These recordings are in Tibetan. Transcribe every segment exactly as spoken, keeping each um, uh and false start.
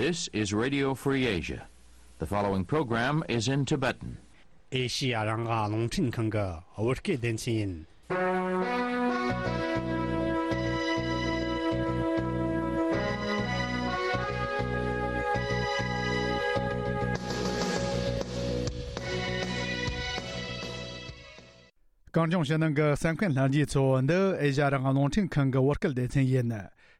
This is Radio Free Asia. The following program is in Tibetan. ཨེ་ཤི་ཡ་རང་དབང་རླུང་འཕྲིན་ཁང་གི་བོད་སྐད་སྡེ་ཚན་ཡིན། གངས་ལྗོངས་ཕྱི་ནང་གི་གསན་མཁན་ལྷན་རྒྱས་ཚོ། འདི་ཨེ་ཤ་ཡ་རང་དབང་རླུང་འཕྲིན་ཁང་གི་བོད་སྐད་སྡེ་ཚན་ཡིན།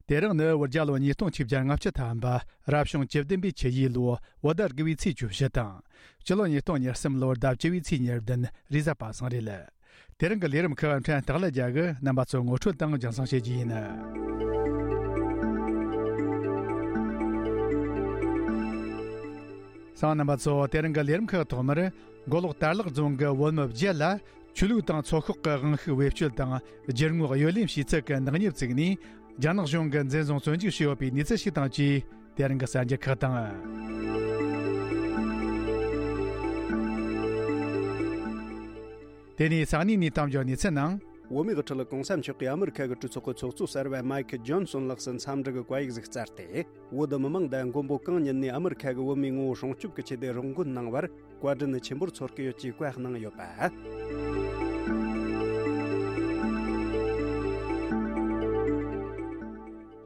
དེ་རིང་ནི་བོད་རྒྱལ་ལོ་ཉིས་སྟོང་ཆིག་བརྒྱ་ལྔ་བཅུ་ཐམ་པ། རབ་བྱུང་བཅུ་བདུན་པའི་ཆུ་ཡོས་ལོ། བོད་ཟླ་དགུ་བའི་ཚེས་བཅུ་བཞི་དང་། སྤྱི་ལོ་ཉིས་སྟོང་ཉེར་གསུམ་ལོར་ཟླ་བཅུ་བའི་ཚེས་ཉེར་བདུན། རེས་གཟའ་པ་སངས་རེད། དེ་རིང་གི་ལས་རིམ་ཁག་ཕྲན་སྟག་ལ་རྒྱལ་གྱིས་རྣམ་པ་ཚོ་ངོ་སྤྲོད་དང་རྒྱང་སྲིང་བྱེད་རྒྱུ་ཡིན། གསན་མཁན་རྣམ་པ་ཚོ། དེ་རིང་གི་ལས་རིམ་ཁག་ཐོག་མར། མགོ་ལོག་དར་ལག་རྫོང་གི་བོད་མི་བརྒྱད་ལ་ཆོས་ལུགས་དང་ཚོགས་ཤོག་གི་དབང་ཤུགས་བེད་སྤྱོད་དང་རྒྱུ་དངོས་གཡོ་ལེན་བྱས་ཚུལ་གྱི་ནག་ཉེས་བཙུགས་ནས། རྒྱ་ནག་གཞུང་གིས་འཛིན་བཟུང་བཙོན་འཇུག་བྱས་ཡོད་པའི་གནས་ཚུལ་ཞིག་དང་བཅས། དེ་རིང་གི་གསར་འགྱུར་ཁག་དང་། དེ་ནས་ས་གནས་ནས་གཏམ་བརྗོད་གནས་ཚུལ་ནང་། བོད་མིའི་དབུ་ཁྲིད་གོང་ས་མཆོག་གིས་ཨ་མི་རི་ཁ་གི་གྲོས་ཚོགས་ཀྱི་ཚོགས་གཙོ་གསར་པ་མཱིག་ཇོན་སོན་ལགས་སུ་འཚམས་འདྲི་གི་བཀའ་ཡིག་ཟིག་བསྩལ་ཏེ། བོད་མི་མང་དང་མགོན་པོ་གང་ཉིད་ནས་ཨ་མི་རི་ཁ་གི་བོད་མིའི་ངོ་བོ་སྲུང་སྐྱོབ་ཀྱི་ཆེད་དུ་རོགས་མགོན་གནང་བར་བཀའ་དྲིན་ཆེན་པོར་ཚོར་གྱི་ཡོད་ཅེས་བཀའ་གནང་ཡོད་པ།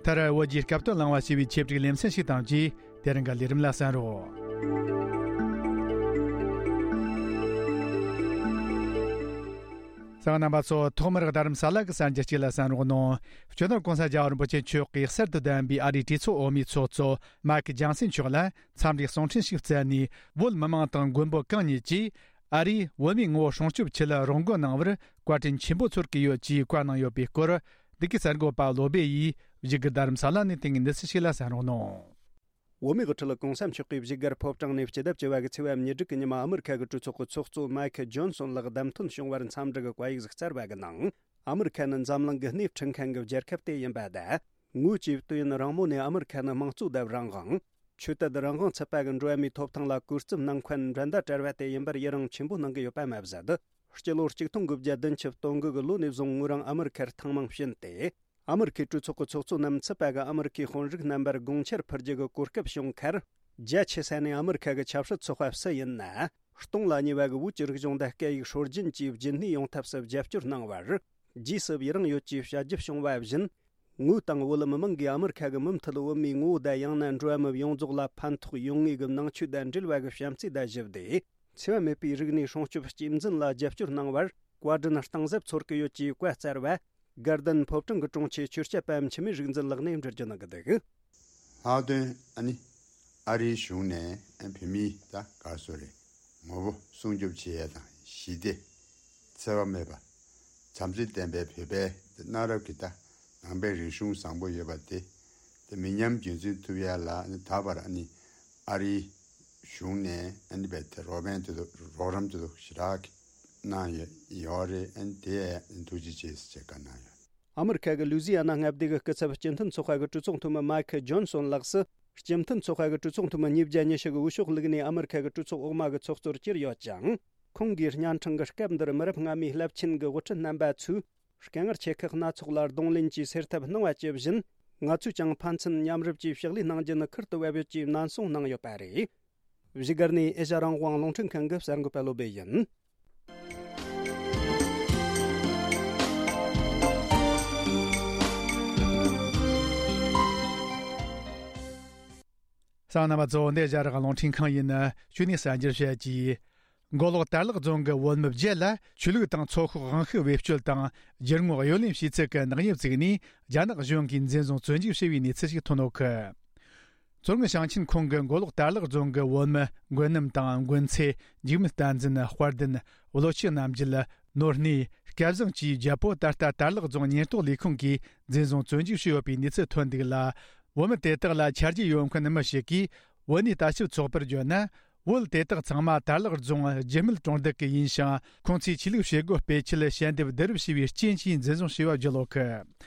མཐར་བོད་ཀྱི་སྐབས་དོན་བླངས་པ་ཞེས་པའི་ཆེད་བསྒྲིགས་ལེ་ཚན་ཞིག་དང་བཅས། དེ་རིང་གི་ལས་རིམ་ལ་གསན་རོགས། གསན་མཁན་རྣམ་པ་ཚོ། ཐོག་མར་རྡ་རམ་ས་ལ་གི་གསར་འགྱུར་གཅིག་ལ་གསན་རོགས་གནང་། སྤྱི་ནོར་༸གོང་ས་༸རྒྱལ་བ་རིན་པོ་ཆེ་མཆོག་གིས་གསར་དུ་བདམས་པའི་ཨ་རིའི་གྲོས་ཚོགས་འོག་མའི་ཚོགས་གཙོ་མཱིག་ཇོན་སན་མཆོག་ལ་འཚམས་འདྲིའི་གསུང་འཕྲིན་ཞིག་བསྩལ་ནས། བོད་མི་མང་དང་མགོན་པོ་གང་ཉིད་ཀྱིས་ཨ་རིས་བོད་མིའི་ངོ་བོ་སྲུང་སྐྱོབ་ཆེད་ལ་རོགས་མགོན་གནང་བར་བཀའ་དྲིན་ཆེན་པོ་ཚོར་གྱི་ཡོད་ཅེས་བཀའ་གནང་ཡོད་པའི་སྐོར། འདི་གའི་གསར་འགོད་པ་བློ་བྷེ་ཡིས་བཞུགས་སྒར་རྡ་རམ་ས་ལ་ནས་བཏང་བའི་གནས་ཚུལ་ཞིག་ལ་གསན་རོགས་གནང་། བོད་མིའི་དབུ་ཁྲིད་༸གོང་ས་མཆོག་གིས་བཞུགས་སྒར་ཕོ་བྲང་ནས་སྤྱི་ཟླ་བཅུ་བ་གི་ཚེས་པ་ཉེར་དྲུག་གི་ཉི་མ་ཨ་མི་རི་ཁ་གི་གྲོས་ཚོགས་ཀྱི་ཚོགས་གཙོ་མཱིག་ཇོན་སོན་ལགས་བདམས་ཐོན་བྱུང་བར་འཚམས་འདྲི་གི་བཀའ་ཡིག་ཟིག་བསྩལ་བ་གི་ནང་། ཨ་མི་རི་ཁ་ནི་འཛམ་གླིང་གི་སྣེ་ཁྲིད་མཁན་གྱི་རྒྱལ་ཁབ་དེ་ཡིན་པ་དང་། ངོས་ཀྱིས་དུས་ཡུན་རིང་མོ་ནས་ཨ་མི་རི་ཁ་ནི་དམངས་གཙོ་དང་རང་དབང་། ཆོས་དད་རང་དབང་ཚུད་པ་གི་འགྲོ་བ་མིའི་ཐོབ་ཐང་ལ་གུས་བརྩི་གནང་མཁན་འགྲན་ཟླ་བྲལ་བ་དེ་ཡིན་པར་ཡི་རང་ཆེན་པོ་གནང་གི་ཡོད་པ་མ་ཟད། སྤྱི་ལོ་གཅིག་སྟོང་དགུ་བརྒྱ་བདུན་ཅུ་དོན་དགུ་གི་ལོ་ནས་བཟུང་ངོས་རང་ཨ་མི་རི་ཁར་ཐེངས་མང་ཕྱིན་ཏེ། ཨ་མི་རི་ཁའི་གྲོས་ཚོགས་ཀྱི་ཚོགས་གཙོ་རྣམས་ཚུད་པ་གི་ཨ་མི་རི་ཁའི་དཔོན་རིགས་རྣམ་པར་དགོངས་འཆར་ཕུལ་རྒྱུ་གི་གོ་སྐབས་བྱུང་ཁར། རྒྱ་ཆེ་ས་ནས་ཨ་མི་རི་ཁ་གི་ཆབ་སྲིད་ཚོགས་པ་སུ་ཡིན་ན། སྟོང་ལ་ཉེ་བ་གི་བོད་ཀྱི་རིག་གཞུང་དང་སྐད་ཡིག་སྲོལ་རྒྱུན་བཅས་རྒྱུན་གནས་ཡོང་ཐབས་སུ་རྒྱབ་སྐྱོར་གནང་བར། རྗེས་སུ་ཡི་རང་ཡོད་ཅེས་བྱ་རྒྱུ་བྱུང་བ་བཞིན། ངོས་དང་བོད་མི་མང་གིས་ཨ་མི་རི་ཁ་གི་མུ་མཐུད་བོད་མིའི་ངོ་བོ་དང་ཡང་ན་འགྲོ་བ་མི་ཡོངས་རྫོགས་ལ་ཕན་ཐོགས་ཡོང་ངེས་ཀྱི་ནང་ཆོས་དང་འབྲེལ་བ་གི་བྱམས་བརྩེ་དང་ཞི་བདེ། འཚེ་བ་མེད་པའི་རིག་གནས་སྲུང་སྐྱོབ་རྒྱུན་འཛིན་ལ་རྒྱབ་སྐྱོར་གནང་བར་བཀའ་དྲིན་གཏིང་ཟབ་ཚོར་གྱི་ཡོད་ཅེས་བཀའ་སྩལ་བ། དགའ་ལྡན་ཕོ་བྲང་གི་དྲུང་ཆེ་ཆོས་སྐྱབས་པ་འཆི་མེད་རིག་འཛིན་ལགས་ནས་འགྲེལ་བརྗོད་གནང་གི་འདུག། ལྷག་དོན་ཨ་ནི་ཨ་རིའི་གཞུང་ནས་བོད་མིའི་ད་ག་རེ་ཟེར་དགོས་རེད། ངོ་བོ་སྲུང་སྐྱོབ་བྱེད་ཡས་དང་ཞི་བདེ། འཚེ་བ་མེད་པ། བྱམས་བརྩེ་ལྡན་པའི་བོད་པའི་གནའ་རབས་ཀྱི་ད་ནང་པའི་རིག་གཞུང་བཟང་པོ་ཡོད་པ་དེ། དེ་མི་ཉམས་རྒྱུན་འཛིན་ཐུབ་ཡ་ལ་ནི་ད་བར་ཨ་ནི་ཨ་རིའི་གཞུང་ནས་ཨ་ནི་བའི་དེ་རོགས་ཕན་དེ་ཚོ་རོགས་རམ་དེ་ཚོ་ཞེ་དྲག་གནང་ཡོད་ཡོད་རེད། ཨ་ནི་དེ་ཐུགས་རྗེ་ཆེ་ཟེར་བྱས་བཀའ་གནང་ཡོད། ཨ་མི་རི་ཁ་གི་ལུའུ་ཛི་ཡ་ན་མངའ་སྡེ་གི་སྐུ་ཚབ་སྤྱི་མཐུན་ཚོགས་པ་གི་གྲོས་ཚོགས་འཐུས་མི་མཱིག་ཇོན་སོན་ལགས་སུ། སྤྱི་མཐུན་ཚོགས་པ་གི་གྲོས་ཚོགས་འཐུས་མི་ཉིས་བརྒྱ་ཉི་ཤུ་གི་འོས་ཤོག་བླུགས་ནས་ཨ་མི་རི་ཁ་གི་གྲོས་ཚོགས་འོག་མ་གི་ཚོགས་གཙོར་གྱུར་ཡོད་ཅིང་། ཁོང་གིས་གཉའ་ཕྲེང་གི་སྐབས་འདིར་མི་རབས་སྔ་མའི་རླབས་ཆེན་གྱི་དབུ་ཁྲིད་རྣམ་པ་ཚོས་དཀའ་ངལ་ཆེ་ཁག་སྣ་ཚོགས་ལ་གདོང་ལེན་གྱིས་སེལ་ཐབས་གནང་བ་ཇི་བཞིན། ང་ཚོས་ཀྱང་ཕན་ཚུན་མཉམ་རུབ་ཀྱིས་ཕྱག་ལས་གནང་རྒྱུ་ནི་ཁུར་དུ་བབས་ཡོད་ཅེས་ནན་གསུང་གནང་ཡོད་པ་རེད། བཞུགས་སྒར་ནས་ཨེ་ཤ་ཡ་རང་དབང་རླུང་འཕྲིན་ཁང་གི་གསར་འགོད་པ་བློ་བྷེ་ཡིན། གསན་མཁན་རྣམ་པ་ཚོ། འདི་ཨེ་ཤ་ཡ་རང་དབང་རླུང་འཕྲིན་ཁང་ཡིན། གཞུག་ནས་གསར་འགྱུར་བཤད་ཀྱིས། མགོ་ལོག་དར་ལག་རྫོང་གི་བོད་མི་བརྒྱད་ལ་ཆོས་ལུགས་དང་ཚོགས་ཤོག་དབང་ཤུགས་བེད་སྤྱོད་དང་རྒྱུ་དངོས་གཡོ་ལེན་བྱས་ཚུལ་གྱི་ནག་ཉེས་བཙུགས་ནས་རྒྱ་ནག་གཞུང་གིས་འཛིན་བཟུང་བཙོན་འཇུག་བྱས་པའི་གནས་ཚུལ་ཞིག་ཐོན་ཡོད་གི། མཚོ་སྔོན་ཞིང་ཆེན་ཁོངས་ཀྱི་མགོ་ལོག་དར་ལག་རྫོང་གི་བོད་མི་མགོན་རྣམ་དང་མགོན་ཚེ། འཇིགས་མེད་བསྟན་འཛིན། དཔལ་ལྡན། བློ་ཆོས་རྣམ་རྒྱལ། ནོར་གནས། སྐལ་བཟང་བཅས་བརྒྱད་པོ་ད་ལྟ་དར་ལག་རྫོང་ཉེན་རྟོག་ལས་ཁུངས་ཀྱིས་འཛིན་བཟུང་བཙོན་འཇུག་བྱས་ཡོད་པའི་གནས་ཚུལ་ཐོན་འདུག་ལ། བོད་མི་དེ་དག་ལ་ཆ་རྒྱུས་ཡོད་མཁན་མི་ཞིག་གིས་བོད་གནས་ལྟ་ཞིབ་ཚོགས་པར་བརྗོད་ན། བོད་དེ་དག་ཚང་མ་དར་ལག་རྫོང་རྒྱུད་སྨད་གྲོང་རྡལ་གྱི་ཡིན་ཞིང་། ཁོང་ཚོས་ཆོས་ལུགས་བྱེད་སྒོ་སྤེལ་ཆེད་ཞལ་འདེབས་བསྡུ་རུབ་བྱས་པའི་རྐྱེན་གྱིས་འཛིན་བཟུང་བྱས་པ་བརྗོད་ཡོད་གི།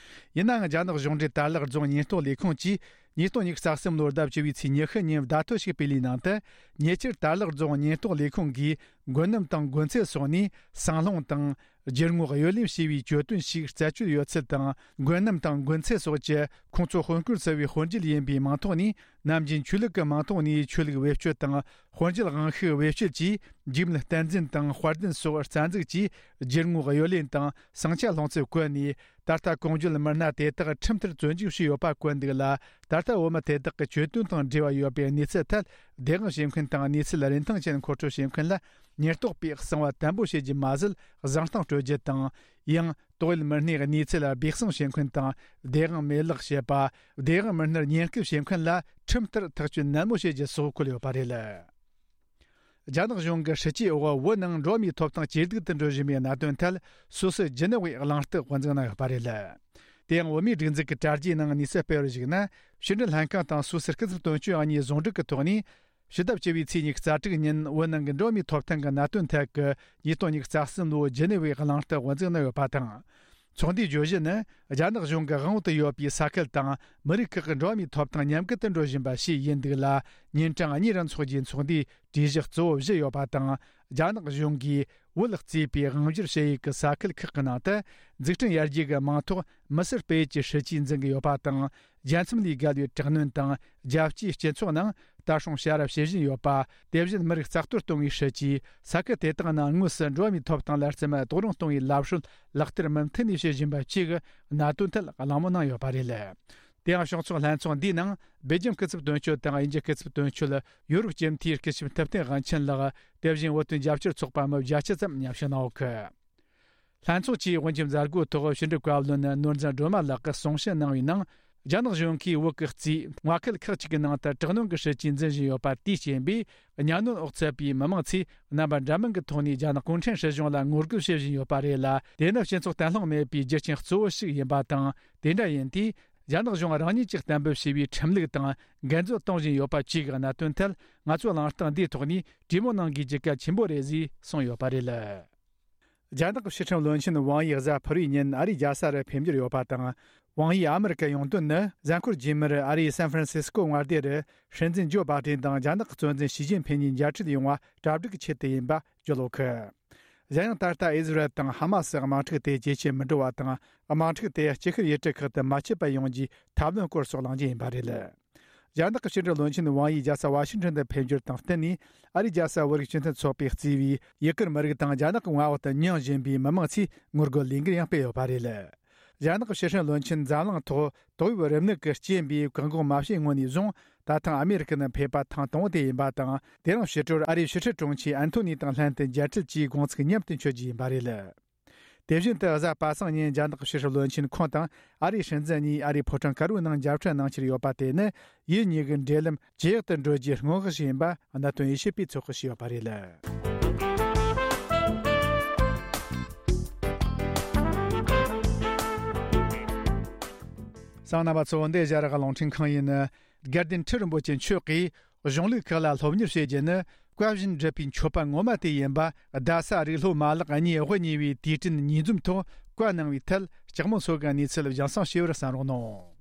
ཡིན་ནའང་རྒྱ་ནག་གཞུང་འབྲེལ་དར་ལག་རྫོང་ཉེན་རྟོག་ལས་ཁུངས་ཀྱིས་ཉིས་སྟོང་ཉི་ཤུ་རྩ་གསུམ་ལོར་ཟླ་བཅུ་བའི་ཚེས་ཉི་ཤུ་ཉིན་བརྡ་ཐོ་ཞིག་སྤེལ་བའི་ནང་དུ། ཉེ་ཆར་དར་ལག་རྫོང་ཉེན་རྟོག་ལས་ཁུངས་ཀྱིས་མགོན་རྣམ་དང་མགོན་ཚེ་སོགས་ནས་སྲང་ལྷུང་དང་། རྒྱུ་དངོས་གཡོ་ལེན་བྱས་པའི་གྱོད་དོན་ཞིག་རྩད་གཅོད་ཡོད་ཚུལ་དང་། མགོན་རྣམ་དང་མགོན་ཚེ་སོགས་ཀྱིས་ཁོང་ཚོ་དཔོན་སྐོར་ཟུར་པའི་དཔོན་རྒྱུད་ཡིན་པའི་མིང་ཐོག་ནས་ ནམ་རྒྱུན་ཆོས་ལུགས་ཀྱི་མིང་ཐོག་ནས་ཆོས་ལུགས་བེད་སྤྱོད་དང་། དཔོན་བྱད་དབང་ཤུགས་བེད་སྤྱོད་ཀྱིས་འཇིགས་མེད་བསྟན་འཛིན་དང་དཔལ་ལྡན་སོགས་རྩ་འཛུགས་ཀྱིས་རྒྱུ་དངོས་གཡོ་ལེན་དང་ཟིང་ཆ་སློང་ཚུལ་བཀོད་ནས། ད་ལྟ་གོང་བརྗོད་མི་སྣ་དེ་དག་ཁྲིམས་ལྟར་བཙོན་འཇུག་བྱས་ཡོད་པ་བཀོད་འདུག་ལ། ད་ལྟ་བོད་མི་དེ་དག་གི་གྱོད་དོན་དང་འབྲེལ་བ་ཡོད་པའི་གནས་ཚུལ་ཐད། བདེན་དཔང་བྱེད་མཁན་དང་གནས་ཚུལ་རིན་ཐང་ཅན་མཁོ་སྤྲོད་བྱེད་མཁན་ལ་ཉེན་རྟོག་པས་གསང་བ་དམ་པོ་བྱེད་རྒྱུ་མ་ཟད། བཟང་གཏམ་སྤྲོད་རྒྱུ་དང་། ཡང་། དོགས་ཡོད་མི་སྣའི་གནས་ཚུལ་ལ་སྦས་གསང་བྱེད་མཁན་དང་། བདེན་དཔང་མེད་ལག་བྱེད་པ། བདེན་དཔང་མི་སྣར་ཉེན་སྐུལ་བྱེད་མཁན་ལ་ཁྲིམས་ལྟར་ཐག་གཅོད་ནན་མོ་བྱེད་རྒྱུ་སོགས་བཀོད་ཡོད་པ་རེད། རྒྱ་ནག་གཞུང་གི་སྲིད་ཇུས་འོག་བོད་ནང་འགྲོ་བ་མིའི་ཐོབ་ཐང་ཇེ་སྡུག་ཏུ་འགྲོ་བཞིན་པའི་གནད་དོན་ཐད། སོ་སོའི་ཇི་ནི་ཝའི་གླེང་སྟེགས་དབུ་འཛུགས་གནང་ཡོད་པ་རེད། དེ་ཡང་བོད་མིའི་སྒྲིག་འཛུགས་ཀྱི་དྲ་རྒྱའི་ནང་གནས་ཚུལ་སྤེལ་བར་གཞིགས་ན། ཕྱི་འབྲེལ་ལྷན་ཁང་དང་སོ་སོའི་སྐུ་ཚབ་དོན་གཅོད་གཉིས་ཟུང་འབྲེལ་གྱི་ཐོག་ནས། ཕྱི་ཟླ་བཅུ་པའི་ཚེས་ཉི་ཤུ་རྩ་དྲུག་ཉིན་བོད་ནང་གི་འགྲོ་བ་མིའི་ཐོབ་ཐང་གི་གནད་དོན་ཐད་ཀྱི་ཉིས་སྟོང་ཉི་ཤུ་རྩ་གསུམ་ལོའི་ཇི་ནི་ཝའི་གླེང་སྟེགས་དབུ་འཛུགས་གནང་ཡོད་པ་དང་། ཚོགས་འདུའི་བརྗོད་གཞི་ནི། རྒྱ་ནག་གཞུང་གི་དབང་འོག་ཏུ་ཡོད་པའི་ས་ཁུལ་དང་མི་རིགས་ཁག་གི་འགྲོ་བ་མིའི་ཐོབ་ཐང་ཉམས་རྒུད་དུ་འགྲོ་བཞིན་པ་ཞིག་ཡིན་འདུག་ལ། ཉིན་གྲངས་གཉིས་རིང་འཚོགས་རྒྱུའི་ཚོགས་འདུའི་གྲོས་གཞི་གཙོ་བོ་བཞི་ཡོད་པ་དང་། རྒྱ་ནག་གཞུང་གིས་བོད་གཙོས་པའི་དབང་སྒྱུར་བྱེད་ཡུལ་གྱི་ས་ཁུལ་ཁག་གི་ནང་དུ། འཛུགས་སྐྲུན་ཡར་རྒྱས་ཀྱི་མིང་ཐོག་མི་སེར་སྤེལ་ཡུལ་གྱི་སྲིད་ཇུས་འཛིན་གྱི་ཡོད་པ་དང་། རྒྱལ་མཚམས་ལས་བརྒལ་བའི་དྲག་གནོན་དང་། རྒྱལ་སྤྱིའི་སྤྱི་ཚོགས་ནང་ལྟ་སྲུང་བྱ་ར་བྱེད་བཞིན་ཡོད་པ། དེ་བཞིན་མི་རིགས་རྩ་གཏོར་གཏོང་བའི་སྲིད་ཇུས། ས་ཁུལ་དེ་དག་ནང་དངོས་སུ་འགྲོ་བ་མིའི་ཐོབ་ཐང་ལ་རྩིས་མེད་རྡོག་རོལ་གཏོང་བའི་ལམ་སྲོལ་ལག་བསྟར་མུ་མཐུད་ནས་བྱེད་བཞིན་པ་བཅས་ཀྱི་གནད་དོན་ཐད་གླེང་མོལ་གནང་ཡོད་པ་རེད། དེ་ཡང་སྤྱི་ཚོགས་ལྷན་ཚོགས་འདིའི་ནང་སྦེལ་ཇམ་སྐུ་ཚབ་དོན་གཅོད་དང་དབྱིན་ཇི་སྐུ་ཚབ་དོན་གཅོད། ཡོ་རོབ་སྤྱི་འཐུས་སྐུ་ཞབས་ཐུབ་བསྟན་དབང་ཆེན་ལགས། དེ་བཞིན་བོད་དོན་རྒྱབ་སྐྱོར་ཚོགས་པ་མི་བརྒྱད་ཅུ་ཙམ་མཉམ་ཞུགས་གནང་ཡོད་གི། ལྷན་ཚོགས་ཀྱིས་དབུ་འབྱེད་མཛད་སྒོའི་ཐོག་ཕྱི་འབྲེལ་བཀའ་བློན་ནོར་འཛིན་སྒྲོལ་མ་ལགས་ཀྱིས་གསུང་བཤད་གནང་བའི་ནང་། རྒྱ་ནག་གཞུང་གིས་བོད་ཀྱི་གཙོས་མངའ་ཁུལ་ཁག་ཅིག་གི་ནང་དུ་དྲག་གནོན་གྱི་སྲིད་ཇུས་འཛིན་བཞིན་ཡོད་པ་དེའི་རྐྱེན་པས། གཉའ་གནོན་འོག་ཚུད་པའི་མི་མང་ཚོས་རྣམ་པ་འདྲ་མིན་གྱི་ཐོག་ནས་རྒྱ་ནག་གུང་ཁྲན་སྲིད་གཞུང་ལ་ངོ་རྒོལ་བྱེད་བཞིན་ཡོད་པ་རེད་ལ། དེ་ནི་སྤྱི་ཚོགས་བརྟན་ལྷིང་མེད་པའི་རྒྱུ་རྐྱེན་གཙོ་བོ་ཞིག་ཡིན་པ་དང་། དེ་འདྲ་ཡིན་དུས། རྒྱ་ནག་གཞུང་རང་ཉིད་ཀྱིས་གཏན་འབེབས་བྱས་པའི་ཁྲིམས་ལུགས་དང་འགལ་འཛོལ་གཏོང་བཞིན་ཡོད་པ་བཅས་ཀྱི་གནད་དོན་ཐད། ང་ཚོས་གླེང་སྟེགས་འདིའི་ཐོག་ནས་གྲོས་མོལ་གནང་དགོས་རྒྱུ་གལ་ཆེན་པོ་རེད་ཅེས་གསུངས་ཡོད་པ་རེད། རྒྱ་ནག་གི་ཕྱི་ཁྲིམས་བློན་ཆེན་ཝང་ཡི་གཟའ་ཕུར་བུའི་ཉིན་ཨ་རིའི་རྒྱལ་ས་རུ་ཕེབས་འབྱོར་ཡོད་པ་དང་། ཝང་ཡིས་ཨ་མི་རི་ཀར་ཡོང་དོན་ནི། གཟའ་འཁོར་རྗེས་མར་ཨ་རིའི་སན་ཧྥ་རན་སི་སྐོ་མངའ་སྡེ་རུ། སྲིད་འཛིན་ཇོ་བྷ་ཏན་དང་རྒྱ་ནག་གི་གཙོ་འཛིན་ཞི་ཅིན་ཕིན་གཉིས་མཇལ་འཕྲད་ཡོང་བ་གྲ་སྒྲིག་གི་ཆེད་དུ་ཡིན་པ་བརྗོད་ཡོད་གི། གཞན་ཡང་། ད་ལྟ་ཨི་ཟི་རལ་དང་ཧ་མ་སི་དམག་འཁྲུག་དེ་ཇེ་ཆེར་མི་འགྲོ་བ་དང་། དམག་འཁྲུག་དེ་དཀྱིལ་ཤར་ཡུལ་གྲུ་ཁག་ཏུ་མ་མཆེད་པ་ཡོང་རྒྱུའི་ཐབས་ལམ་སྐོར་སོགས་གླེང་རྒྱུ་ཡིན་པ་རེད། རྒྱ་ནག་གི་ཕྱི་འབྲེལ་བློན་ཆེན་ཝང་ཡིས་རྒྱལ་ས་ཝ་ཤིང་ཊོན་དུ་ཕེབས་འབྱོར་དང་བསྟུན་ནས། ཨ་རིའི་རྒྱལ་ས་བོད་རིགས་སྤྱི་མཐུན་ཚོགས་པས་གཙོས་པའི་ཡུ་གུར་མི་རིགས་དང་རྒྱ་ནག་གི་མངའ་འོག་ཏུ་མྱོང་བཞིན་པའི་མི་མང་ཚོས་ངོ་རྒོལ་ལས་འགུལ་ཡང་སྤེལ་ཡོད་པ་རེད། རྒྱ་ནག་གི་ཕྱི་སྲིད་བློན་ཆེན་འཛམ་གླིང་ཐོག་ཏོག་དབྱིབས་རིམས་ནད་ཀྱི་རྐྱེན་པས་བཀག་འགོག་མ་བྱས་སྔོན་ནས་བཟུང་། ད་ཐེངས་ཨ་མེ་རི་ཁ་ནང་ཕེབས་པ་ཐེངས་དང་པོ་དེ་ཡིན་པ་དང་། དེ་རིང་ཕྱི་དྲོར་ཨ་རིའི་ཕྱི་སྲིད་དྲུང་ཆེ་ཨན་ཐོ་ནི་དང་ལྷན་དུ་མཇལ་འཕྲད་ཀྱིས་དགོང་ཚིགས་མཉམ་དུ་མཆོད་རྒྱུ་ཡིན་པ་རེད། དེ་བཞིན་དུ་གཟའ་པ་སངས་ཉིན་རྒྱ་ནག་གི་ཕྱི་སྲིད་བློན་ཆེན་ཁོང་དང་ཨ་རིའི་སྲིད་འཛིན་གཉིས་ཨ་རིའི་ཕོ་བྲང་དཀར་པོའི་ནང་མཇལ་འཕྲད་གནང་འཆར་ཡོད་པ་དེ་ནི། ཡུལ་གཉིས་ཀྱི་འབྲེལ་ལམ་ཇེ་ཡག་ཏུ་འགྲོ་རྒྱུའི་སྔོན་དཔག་ཞིག་ཡིན་པ་གནད་དོན་དབྱེ་ཞིབ་པས་ཚོད་དཔག་བྱས་ཡོད་པ་རེད། གསན་མཁན་རྣམ་པ་ཚོ། འདི་ཨེ་ཤ་ཡ་རང་དབང་རླུང་འཕྲིན་ཁང་ཡིན། དགའ་ལྡན་ཁྲི་རིན་པོ་ཆེ་མཆོག་གིས། གཞུང་ལུགས་ཁག་ལ་སློབ་གཉེར་བྱེད་རྒྱུ་ནི། བཀའ་བཞིན་སྒྲུབ་པའི་མཆོད་པ་ངོ་མ་དེ་ཡིན་པ། རྡ་ས་རིགས་སློབ་མ་ལག་གཉིས་དབུ་བརྙེས་པའི་དུས་དྲན་ཉིས་འཛོམས་ཐོག་བཀའ་གནང་བའི་ཐད། ལྕགས་མོ་མཚོ་གི་གནས་ཚུལ་སྦྱང་གསང་ཞུ་བར་གསན་རོགས་གནང་།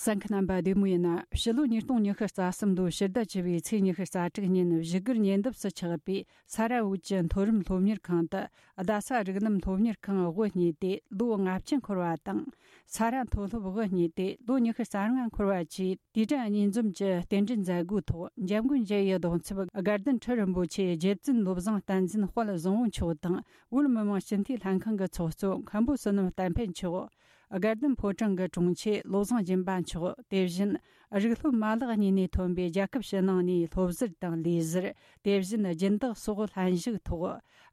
གསན་མཁན་རྣམ་པ་བདེ་མོ་ཡིན་ན། ཕྱི་ལོ་ཉིས་སྟོང་ཉི་ཤུ་རྩ་གསུམ་ལོའི་ཕྱི་ཟླ་བཅུ་པའི་ཚེས་ཉི་ཤུ་རྩ་དྲུག་ཉིན་བཞུགས་སྒར་ཉེ་འདབས་སུ་ཆགས་པའི་ས་ར་བོད་ཀྱི་མཐོ་རིམ་སློབ་གཉེར་ཁང་དུ། རྡ་ས་རིགས་ལམ་སློབ་གཉེར་ཁང་དབུ་བརྙེས་ཏེ་ལོ་ལྔ་བཅུ་འཁོར་བ་དང་། ས་ར་མཐོ་སློབ་དབུ་བརྙེས་ཏེ་ལོ་ཉི་ཤུ་རྩ་ལྔ་འཁོར་བ་བཅས་དུས་དྲན་གཉིས་འཛོམས་ཀྱི་རྟེན་འབྲེལ་མཛད་སྒོའི་ཐོག་འཇམ་མགོན་རྒྱལ་བའི་གདུང་འཚོབ་དགའ་ལྡན་ཁྲི་རིན་པོ་ཆེ་རྗེ་བཙུན་བློ་བཟང་བསྟན་འཛིན་དཔལ་བཟང་བོ་མཆོག་དང་། བོད་མི་མང་སྤྱི་འཐུས་ལྷན་ཁང་གི་ཚོགས་གཙོ་མཁན་པོ་བསོད་ནམས་བསྟན་འཕེལ་མཆོག་དགའ་ལྡན་ཕོ་བྲང་གི་དྲུང་ཆེ་བློ་བཟང་སྦྱིན་པ་མཆོག་དེ་བཞིན་རིགས་སློབ་མ་ལག་གཉིས་ནས་ཐོན་པའི་རྒྱལ་ཁབ་ཕྱི་ནང་ནས་སློབ་ཟུར་དང་ལས་ཟུར། དེ་བཞིན་སྦྱིན་བདག་སོགས་ལྷན་ཞུགས་ཐོག་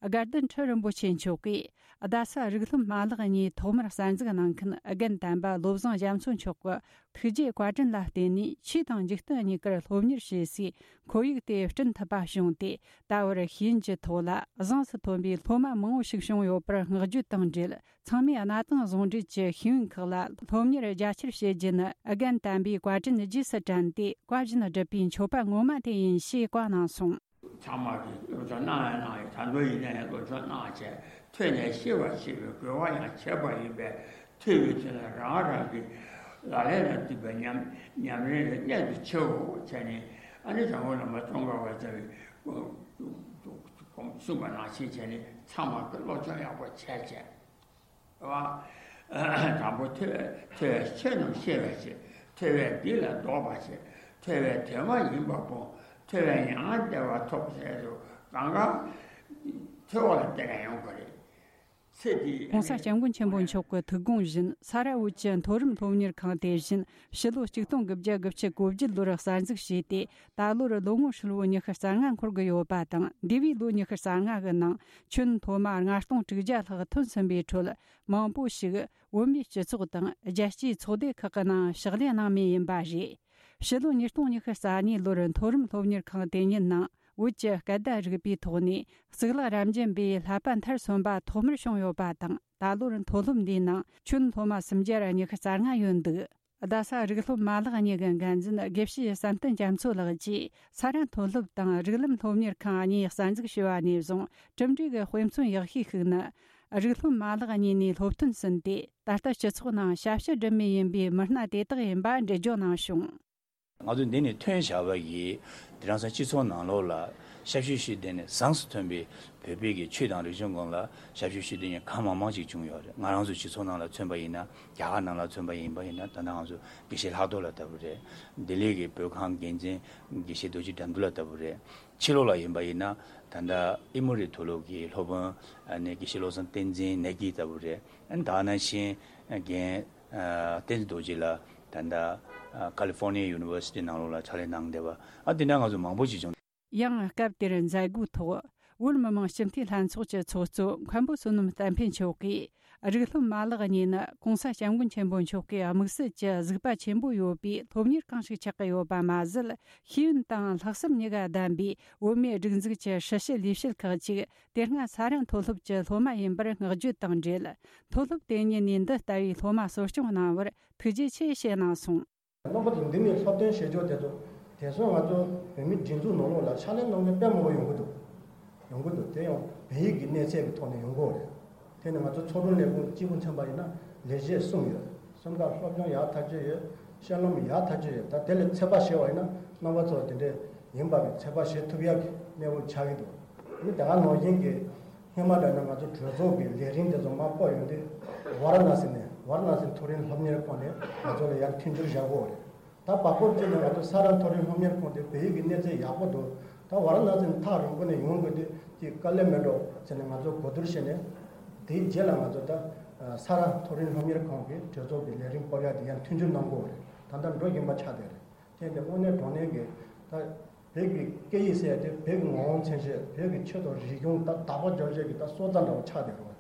དགའ་ལྡན་ཁྲི་རིན་པོ་ཆེ་མཆོག་གིས་རྡ་ས་རིགས་སློབ་མ་ལག་གཉིས་ཐོག་མར་གསར་འཛུགས་གནང་མཁན་རྒན་དམ་པ་བློ་བཟང་རྒྱ་མཚོ་མཆོག་གི་ཐུགས་རྗེའི་བཀའ་དྲིན་ལ་བརྟེན་ནས། ཆོས་དང་འཇིག་རྟེན་གཉིས་ཀར་སློབ་གཉེར་བྱེད་སའི་ཁོར་ཡུག་དེ་བསྐྲུན་ཐུབ་པ་བྱུང་སྟེ། ད་བར་ཤེས་ཡོན་གྱི་ཐོག་ལ་གཟེངས་སུ་ཐོན་པའི་སློབ་མ་མང་བོ་ཞིག་བྱུང་ཡོད་པར་བསྔགས་བརྗོད་དང་འབྲེལ། ཚང་མས་གནའ་དེང་ཟུང་འབྲེལ་གྱི་ཤེས་ཡོན་ཁག་ལ་སློབ་གཉེར་རྒྱ་ཆེར་བྱེད་རྒྱུ་ནི་རྒན་དམ་པའི་བཀའ་དྲིན་རྗེས་སུ་དྲན་ཏེ། བཀའ་བཞིན་སྒྲུབ་པའི་མཆོད་པ་ངོ་མ་དེ་ཡིན་ཞེས་བཀའ་གནང་སོང་། ཚང་མ་གིས་སློབ་སྦྱོང་གནང་ཡང་གནང་ཡང་། ད་དུང་ཡིན་ན་ཡང་སློབ་སྦྱོང་གནང་བྱས། ཐོས་ནས་ཤེས་པར་བྱེད་པའི་རྒོལ་བ་ཡང་བྱེད་པ་ཡིན་པས། ཐོས་པའི་དུས་ན་རང་རང་གི་ལག་ལེན་ལ་འདུས་པའི་ཉམས་ཉམས་ལེན་ལ་གནད་དུ་ཆེའོ་བྱས་ནས། ཨ་ནི་དྲང་པོ་བླ་མ་ཙོང་ཁ་པ་ལྟ་བུའི་གསུངས་པ་ནང་བཞིན་བྱས་ནས། ཚང་མ་གིས་སློབ་སྦྱོང་ཡག་པོ་བྱས་བྱས། དང་པོ་ཐོས་ཐོས་ཆོས་རྣམས་ཤེས་པར་བྱེད། ཐོས་པས་སྒྲིབ་ལ་ལྡོག་པར་བྱེད། ཐོས་པའི་དོན་མ་ཡིན་པ་སྤོང་། ཐོས་པས་མྱ་ངན་འདས་པ་ཐོབ་ཟེར་དུས་གང་ག་ཐོས་པ་ལ་བརྟེན་ནས་ཡོང་གི་རེད། ཚེ་འདི་༸གོང་ས་༸སྐྱབས་མགོན་ཆེན་པོ་མཆོག་གི་ཐུགས་དགོངས་བཞིན། ས་ར་བོད་ཀྱི་མཐོ་རིམ་སློབ་གཉེར་ཁང་དེ་བཞིན་ཕྱི་ལོ་ཆིག་སྟོང་དགུ་བརྒྱ་དགུ་བཅུ་གོ་བརྒྱད་ལོར་གསར་འཛུགས་བྱས་ཏེ། ད་ལོར་ལོ་ངོ་ཧྲིལ་བོ་ཉི་ཤུ་རྩ་ལྔ་འཁོར་གྱི་ཡོད་པ་དང་། འདས་པའི་ལོ་ཉི་ཤུ་རྩ་ལྔ་གི་ནང་ཁྱོན་སློབ་མ་ལྔ་སྟོང་དྲུག་བརྒྱ་ལྷག་ཐོན་ཟིན་པའི་ཁྲོད། མང་པོ་ཞིག་བོད་མིའི་སྤྱི་ཚོགས་དང་རྒྱལ་སྤྱིའི་ཚོགས་སྡེ་ཁག་གི་ནང་ཕྱག་ལས་གནང་མུས་ཡིན་པ་རེད། ཕྱི་ལོ་ཉིས་སྟོང་ཉི་ཤུ་རྩ་གཉིས་ལོར་མཐོ་རིམ་སློབ་གཉེར་ཁང་དེ་ཉིད་ནང་བོད་ཀྱི་སྐད་བརྡ་རིག་པའི་ཐོག་ནས་གཙུག་ལག་རབ་འབྱམས་པའི་བསླབ་པ་མཐར་སོན་པ་ཐོག་མར་བྱུང་ཡོད་པ་དང་། ད་ལོར་མཐོ་སློབ་འདིའི་ནང་ཁྱོན་སློབ་མ་སུམ་བརྒྱ་ཉི་ཤུ་རྩ་ལྔ་ཡོད་འདུག་རྡ་ས་རིགས་སློབ་མ་ལག་གཉིས་ཀྱི་འགན་འཛིན་དགེ་བཤེས་བསམ་གཏན་རྒྱ་མཚོ་ལགས་ཀྱིས། ས་རཱ་མཐོ་སློབ་དང་རིགས་ལམ་སློབ་གཉེར་ཁང་གཉིས་གསར་འཛུགས་བྱས་པ་ནས་བཟུང་གྲུབ་འབྲས་ཀྱི་དཔེ་མཚོན་ཡག་ཤོས་ཤིག་ནི། རིགས་སློབ་མ་ལག་གཉིས་ནས་སློབ་ཐོན་ཟིན་ཏེ། ད་ལྟ་སྤྱི་ཚོགས་ནང་ཞབས་ཞུ་སྒྲུབ་མུས་ཡིན་པའི་མི་སྣ་དེ་དག་ཡིན་པ་འགྲེལ་བརྗོད་གནང་བྱུང་། ང་ཚོ་འདི་ནས་ཐོན་བཞག་པ་ཡིས་དེང་སང་སྤྱི་ཚོགས་ནང་ལོགས་ལ་ཞབས་ཞུ་ཞུ་བསྡད་ནས་བཟང་སུ་ཐོན་པའི་བོད་པའི་གི་ཆོས་དང་རིག་གཞུང་སྒང་ལ་ཞབས་ཞུ་ཞུ་བསྡད་མཁན་གང་མང་མང་ཞིག་བྱུང་ཡོད་རེད། ང་རང་ཚོ་སྤྱི་ཚོགས་ནང་ལ་མཚོན་པ་ཡིན་ན། རྒྱ་གར་ནང་ལ་མཚོན་པ་ཡིན་པ་ཡིན་ན། ད་ལྟ་ང་ཚོ་དགེ་བཤེས་ལྷག་རྡོར་ལགས་ལྟ་བུ་རེད། ལྡི་ལི་གི་བོད་ཁང་འགན་འཛིན་དགེ་བཤེས་རྡོ་རྗེ་དགྲ་འདུལ་ལགས་ལྟ་བུ་རེད། ཕྱི་ལོགས་ལ་ཡིན་པ་ཡིན་ན། ད་ལྟ་ཨེ་མོ་རི་མཐོ་སློབ་ཀྱི་སློབ་དཔོན་ཨ་ནི་དགེ་བཤེས་བློ་བཟང་བསྟན་འཛིན་ནེ་གི་ལྟ་བུ་རེད། ཨ་ནི་ད་ནང་བཞིན་རྒན་ཨ་བསྟན་འཛིན་རྡོ་རྗེ་ལགས་ད་ལྟ་ཨ་ཀ་ལི་ཧྥོར་ནི་ཡ་ཡུ་ནི་ཝར་སི་ཊི་ནང་ལོགས་ལ་ཕྱག་ལས་གནང་བསྡད་པ། ཨ་དེ་འདྲ་ང་ཚོ་མང་པོ་ཞིག་བྱུང་། ཡང་སྐབས་དེར་མཛད་སྒོའི་ཐོག་བོད་མི་མང་སྤྱི་འཐུས་ལྷན་ཚོགས་ཀྱི་ཚོགས་གཙོ་མཁན་པོ་བསོད་ནམས་བསྟན་འཕེལ་མཆོག་གིས། རིགས་སློབ་མ་ལག་གཉིས་ནི་༸གོང་ས་༸སྐྱབས་མགོན་ཆེན་པོ་མཆོག་གི་དམིགས་བསལ་གྱི་གཟིགས་པ་ཆེན་པོ་ཡོད་པའི་སློབ་གཉེར་ཁང་ཞིག་ཆགས་ཀྱི་ཡོད་པ་མ་ཟད། ཤེས་ཡོན་དང་ལྷག་བསམ་གཉིས་ཀ་ལྡན་པའི་བོད་མིའི་སྒྲིག་འཛུགས་ཀྱི་ཧྲི་ཞི་ལས་བྱེད་ཁག་ཅིག་དེ་སྔ་ས་རཱ་མཐོ་སློབ་ཀྱི་སློབ་མ་ཡིན་པར་བསྔགས་བརྗོད་དང་འབྲེལ། མཐོ་སློབ་དེ་ཉིད་ནས་འདི་ལྟ་བུའི་སློབ་མ་གསོ་སྐྱོང་གནང་བར་ཐུགས་རྗེ་ཆེ་ཞེས་གནང་སོང་། རྣམ་པ་ཚོ་འདི་ནས་སློབ་སྟོན་བྱེད་ཕྱོགས་དེ་ཚོ། དེང་སང་ང་ཚོ་བོད་མིའི་སྒྲིག་འཛུགས་ནང་ལོགས་ལ་ཕྱག་ལས་གནང་མཁན་དཔེ་མང་པོ་ཡོང་གི་འདུག་ཡོང་གི་འདུག་དེ་ཡང་བོད་ཡིག་གི་གནས་ཚད་ཀྱི་ཐོག་ནས་ཡོང་གི་ཡོད་རེད། དེ་ནི་ང་ཚོ་ཚོགས་དྲུང་ལས་ཁུངས་གཅིག་པུ་མཚོན་པ་ཡིན་ན་ལས་བྱེད་གསུམ་ཡོད། གསུམ་ཀ་སློབ་སྦྱོང་ཡག་ཐག་ཆོད་ཡོད། བཤད་ལམ་ཡག་ཐག་ཆོད་ཡོད། ད་དེ་ལས་ཚོད་དཔག་བྱས་པ་ཡིན་ན་རྣམ་པ་ཚོ་དེ་འདྲས་ཡིན་པ་གི་ཚོད་དཔག་བྱེད་ཐུབ་ཡག་གི་གནས་བབ་ཆགས་ཀྱི་འདུག་ཨ་ནི་དེ་སྔ་ནང་བཞིན་གྱི་སྔོན་མ་འདྲ་ན་ང་ཚོ་གྲོས་ཚོགས་ཀྱི་ལས་རིམ་དེ་ཚོ་མར་སྤོ་ཡོང་དུས་ཝཱ་ར་ཎ་སི་ནས། ཝཱ་ར་ཎ་སི་མཐོ་རིམ་སློབ་གཉེར་ཁང་ནས་ང་ཚོ་ལ་ཡར་མཐུན་འགྱུར་བཞག་གི་ཡོད་རེད། ད་བར་སྐབས་ཅིག་ནས་ང་ཚོ་ས་རཱ་མཐོ་རིམ་སློབ་གཉེར་ཁང་དེ་བོད་ཡིག་གི་གནས་ཚད་ཡག་པོ་འདུག་ད་ཝཱ་ར་ཎ་སི་ནས་ཐག་རིང་པོ་ནས་ཡོང་དགོས་དུས་ཅིག་དཀའ་ལས་མེད་འགྲོ་ཟེར་ནས་ང་ཚོ་གོ་བསྡུར་བྱས་ནས། དེའི་རྗེས་ལ་ང་ཚོ་ད་ས་རཱ་མཐོ་རིམ་སློབ་གཉེར་ཁང་གི་གྲོས་ཚོགས་ཀྱི་ལས་རིམ་སྤོ་ཡག་དེ་ཡང་མཐུན་འགྱུར་གནང་དགོས་རེད། ད་ལྟ་འགྲོ་བཞིན་པ་ཆགས་བསྡད་རེད། དེ་འདི་དངོས་གནས་དྲང་གནས་ཀྱི་ད་བོད་ཀྱི་སྐད་ཡིག་ཟེར་ཡག་དེ་བོད་ཀྱི་ངོ་བོ་མཚོན་བྱེད། བོད་ཀྱི་ཆོས་དང་རིག་གཞུང་ད་དག་པ་རྒྱབ་བྱེད་ཀྱི་ད་སྲོག་རྩ་འདྲ་བོ་ཆགས་བསྡད་རེད།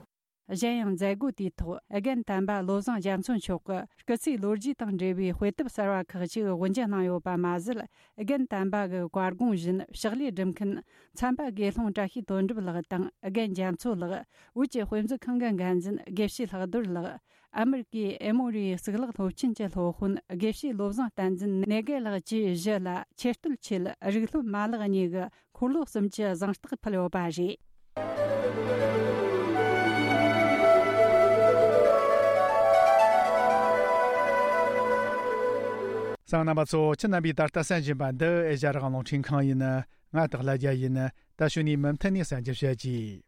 གཞན་ཡང་མཛད་སྒོ་དེའི་ཐོག་རྒན་དམ་པ་བློ་བཟང་རྒྱ་མཚོ་མཆོག་གིས་སྐུ་ཚེའི་ལོ་རྒྱུས་དང་འབྲེལ་བའི་དཔེ་དེབ་གསར་བ་ཁག་ཅིག་དབུ་འབྱེད་གནང་ཡོད་པ་མ་ཟད། རྒན་དམ་པ་གི་བཀའ་དགོངས་བཞིན་ཕྱག་ལས་སྒྲུབ་མཁན་མཚམས་པ་དགེ་སློང་བཀྲ་ཤིས་དོན་གྲུབ་ལགས་དང་། རྒན་རྒྱ་མཚོ་ལགས། བོད་ཀྱི་དཔེ་མཛོད་ཁང་གི་འགན་འཛིན་དགེ་བཤེས་ལྷག་རྡོར་ལགས། ཨ་མེ་རི་ཀའི་ཨེ་མོ་རིའི་གཙུག་ལག་སློབ་ཆེན་གྱི་སློབ་དཔོན་དགེ་བཤེས་བློ་བཟང་བསྟན་འཛིན་ནེ་གེ་ལགས་བཅས་བཞི་ལ་ཆེ་བསྟོད་ཆེད་རིགས་སློབ་མ་ལག་གཉིས་ཀྱི་འཁོར་ལོ་གསུམ་གྱི་གཟེངས་རྟགས་ཕུལ་ཡོད་པ་རེད། གསན་མཁན་རྣམ་པ་ཚོ། ཁྱེད་རྣམ་པས་ད་ལྟ་གསན་བཞིན་པ་འདི་ཨེ་ཤ་ཡ་རང་དབང་རླུང་འཕྲིན་ཁང་ཡིན། ང་སྟག་ལྷ་རྒྱལ་ཡིན། ད་གཞུག་ནས་མུ་མཐུད་ནས་གསན་རྒྱུ་བྱེད་ཀྱིས།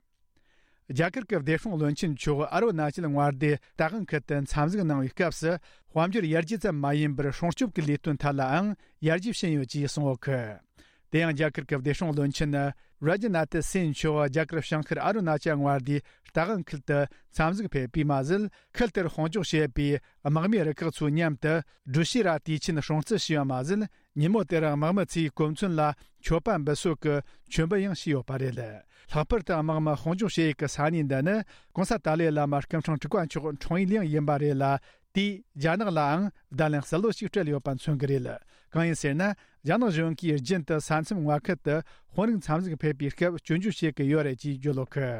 རྒྱ་གར་གྱི་བདེ་སྲུང་བློན་ཆེན་མཆོག་ཨ་རུ་ན་ཅལ་མངའ་སྡེའི་རྟ་དབང་ཁུལ་དུ་འཚམས་གཟིགས་གནང་བའི་སྐབས་སུ། དཔལ་འབྱོར་ཡར་རྒྱས་ཙམ་མ་ཡིན་པར་སྲུང་སྐྱོབ་ཀྱི་ལས་དོན་ཐད་ལའང་ཡར་རྒྱས་ཕྱིན་ཡོད་ཅེས་གསུངས་ཡོད་གི། དེ་ཡང་རྒྱ་གར་གྱི་བདེ་སྲུང་བློན་ཆེན་རཱ་ཇི་ནཱ་ཐི་སིན་མཆོག་རྒྱ་གར་བྱང་ཤར་ཨ་རུ་ན་ཅལ་མངའ་སྡེའི་རྟ་དབང་ཁུལ་དུ་འཚམས་གཟིགས་ཕེབས་པས་མ་ཟད། ཁུལ་དེར་དཔུང་འཇོག་བྱེད་པའི་དམག་མིའི་རུ་ཁག་ཚོའི་མཉམ་དུ་སྦྲུལ་ཤེས་ར་དུས་ཆེན་སྲུང་བརྩི་ཞུས་པ་མ་ཟད། ཉིན་མོ་དེར་དམག་མི་ཚོས་གོ་མཚོན་ལ་མཆོད་པ་འབུལ་སྲོལ་གྱི་མཆོད་འབུལ་ཡང་བྱས་ཡོད་པ་རེད། ལྷག་པར་དུ་དམག་མི་དཔུང་འཇོག་བྱེད་ཡུལ་གྱི་ས་གནས་འདི་ནི་༸གོང་ས་ཏཱ་ལའི་བླ་མ་སྐུ་ཕྲེང་དྲུག་པ་མཆོག་འཁྲུངས་ཡུལ་ཡང་ཡིན་པ་རེད་ལ། དེས་རྒྱ་ནག་ལའང་བརྡ་ལན་གསལ་བོ་ཞིག་སྤྲད་ཡོད་པ་མཚོན་གྱི་རེད། གང་ཡིན་ཟེར་ན། རྒྱ་ནག་གཞུང་གིས་རྒྱུན་དུ་ས་མཚམས་མངའ་ཁུལ་དུ་དཔོན་རིགས་འཚམས་གཟིགས་ཕེབས་པའི་སྐབས་སྐྱོན་བརྗོད་བྱེད་ཀྱི་ཡོད་རེད་ཅེས་བརྗོད་ཡོད་གི།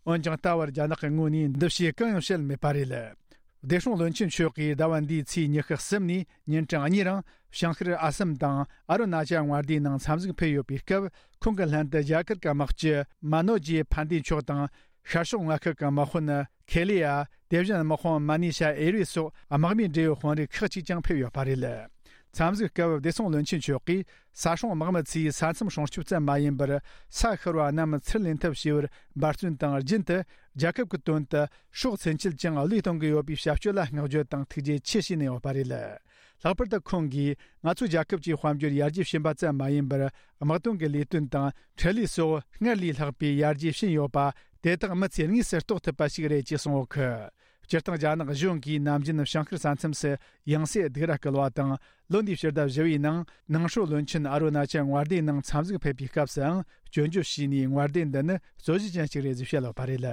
འོན་ཀྱང་། ད་བར་རྒྱ་ནག་གི་ངོས་ནས་འདི་ཕྱིར་གང་ཡང་བཤད་མེད་པ་རེད། བདེ་སྲུང་བློན་ཆེན་མཆོག་གིས་ཟླ་བ་འདིའི་ཚེས་ཉི་ཤུ་གསུམ་ནས་ཉིན་གྲངས་གཉིས་རིང་བྱང་ཤར་ཨ་སམ་དང་ཨ་རུ་ན་ཅལ་མངའ་སྡེའི་ནང་འཚམས་གཟིགས་ཕེབས་ཡོད་པའི་སྐབས། ཁོང་གི་ལྷན་དུ་རྒྱ་གར་གྱི་དམག་སྤྱི་མ་ནོ་ཇི་ཕན་དེ་མཆོག་དང་། ཤར་ཕྱོགས་མངའ་ཁུལ་གྱི་དམག་དཔོན་ཁེ་ལི་ཡ། དེ་བཞིན་དམག་དཔོན་མ་ནི་ཤ་ཨེ་རི་སོགས་དམག་མིའི་འབྲེལ་ཡོད་དཔོན་རིགས་ཁག་ཅིག་ཀྱང་ཕེབས་ཡོད་པ་རེད། འཚམས་གཟིགས་སྐབས་བདེ་སྲུང་བློན་ཆེན་མཆོག་གིས། ས་སྲུང་དམག་མི་ཚོས་ས་མཚམས་སྲུང་སྐྱོབ་ཙམ་མ་ཡིན་པར། ས་ཤོར་བ་རྣམས་ཚུར་ལེན་ཐབས་བྱེད་པར་འབད་བརྩོན་དང་། རྒྱུན་དུ་རྒྱལ་ཁབ་ཀྱི་དོན་དུ་སྲོག་ཚུན་ཆད་ཀྱང་བློས་གཏོང་གི་ཡོད་པའི་བྱ་སྤྱོད་ལ་བསྔགས་བརྗོད་དང་ཐུགས་རྗེ་ཆེ་ཞུས་ནས་ཡོད་པ་རེད། ལྷག་པར་དུ་ཁོང་གིས་ང་ཚོའི་རྒྱལ་ཁབ་ཀྱི་དཔལ་འབྱོར་ཡར་རྒྱས་ཕྱིན་པ་ཙམ་མ་ཡིན་པར། དམག་དོན་གྱི་ལས་དོན་དང་འཕྲུལ་ལས་སོགས་སྔར་ལས་ལྷག་པའི་ཡར་རྒྱས་ཕྱིན་ཡོད་པ། དེ་དག་མི་ཚེ་དངོས་སུ་རྟོགས་ཐུབ་པ་ཞིག་རེད་ཅེས་གསུངས་ཡོད་གི། སྤྱིར་བཏང་རྒྱ་ནག་གཞུང་གིས་ནམ་རྒྱུན་བྱང་ཤར་ས་མཚམས་སུ་ཡང་སེ་སྡུག་ར་སྐུལ་བ་དང་། ལོ་འདིའི་ཕྱི་ཟླ་བཞི་བའི་ནང་ནང་ཧྲོ་བློན་ཆེན་ཨ་རུ་ན་ཅལ་དབར་ཟླའི་ནང་འཚམས་གཟིགས་ཕེབས་པའི་སྐབས་སུའང་སྐྱོན་བརྗོད་བྱས་ནས། དབར་ཟླའི་འདི་ནི་རྩོད་གཞི་ཅན་ཞིག་རེད་ཅེས་བཤད་ཡོད་པ་རེད།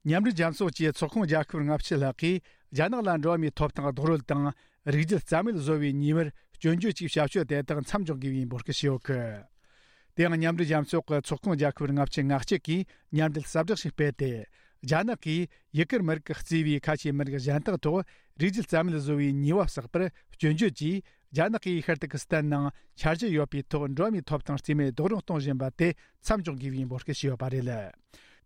མཉམ་འབྲེལ་རྒྱལ་ཚོགས་ཀྱི་ཚོགས་ཁོངས་རྒྱལ་ཁབ་ལྔ་བཅུ་ལྷག་གིས་རྒྱ་ནག་ལ་འགྲོ་བ་མིའི་ཐོབ་ཐང་རྡོག་རོལ་དང་། རིགས་རྒྱུད་རྩ་མེད་བཟོ་བའི་ཉེས་པར་སྐྱོན་བརྗོད་ཀྱིས་བྱ་སྤྱོད་དེ་དག་མཚམས་འཇོག་དགོས་པའི་འབོད་སྐུལ་ཞུས་ཡོད་གི། དེ་ཡང་མཉམ་འབྲེལ་རྒྱལ་ཚོགས་ཀྱི་ཚོགས་ཁོངས་རྒྱལ་ཁབ་ལྔ་བཅུ་ང་གཅིག་གིས་མཉམ་འབྲེལ་གསལ་བསྒྲགས་ཤིག་སྤེལ་ཏེ། རྒྱ་ནག་གིས་ཡུ་གུར་མི་རིགས་ཀྱིས་གཙོས་པའི་ཁ་ཆེའི་མི་རིགས་གཞན་དག་ཐོག་རིགས་རྒྱུད་རྩ་མེད་བཟོ་བའི་ཉེས་པ་བསགས་པར་སྐྱོན་བརྗོད་ཀྱིས། རྒྱ་ནག་གིས་ཤར་ཏུར་ཀི་སི་ཐན་ནང་འཆར་གཞི་ཡོད་པའི་ཐོག་འགྲོ་བ་མིའི་ཐོབ་ཐང་རྩིས་མེད་རྡོག་རོལ་གཏོང་བཞིན་པ་དེ་མཚམས་འཇོག་དགོས་པའི་འབོད་སྐུལ་ཞུས་ཡོད་པ་རེད།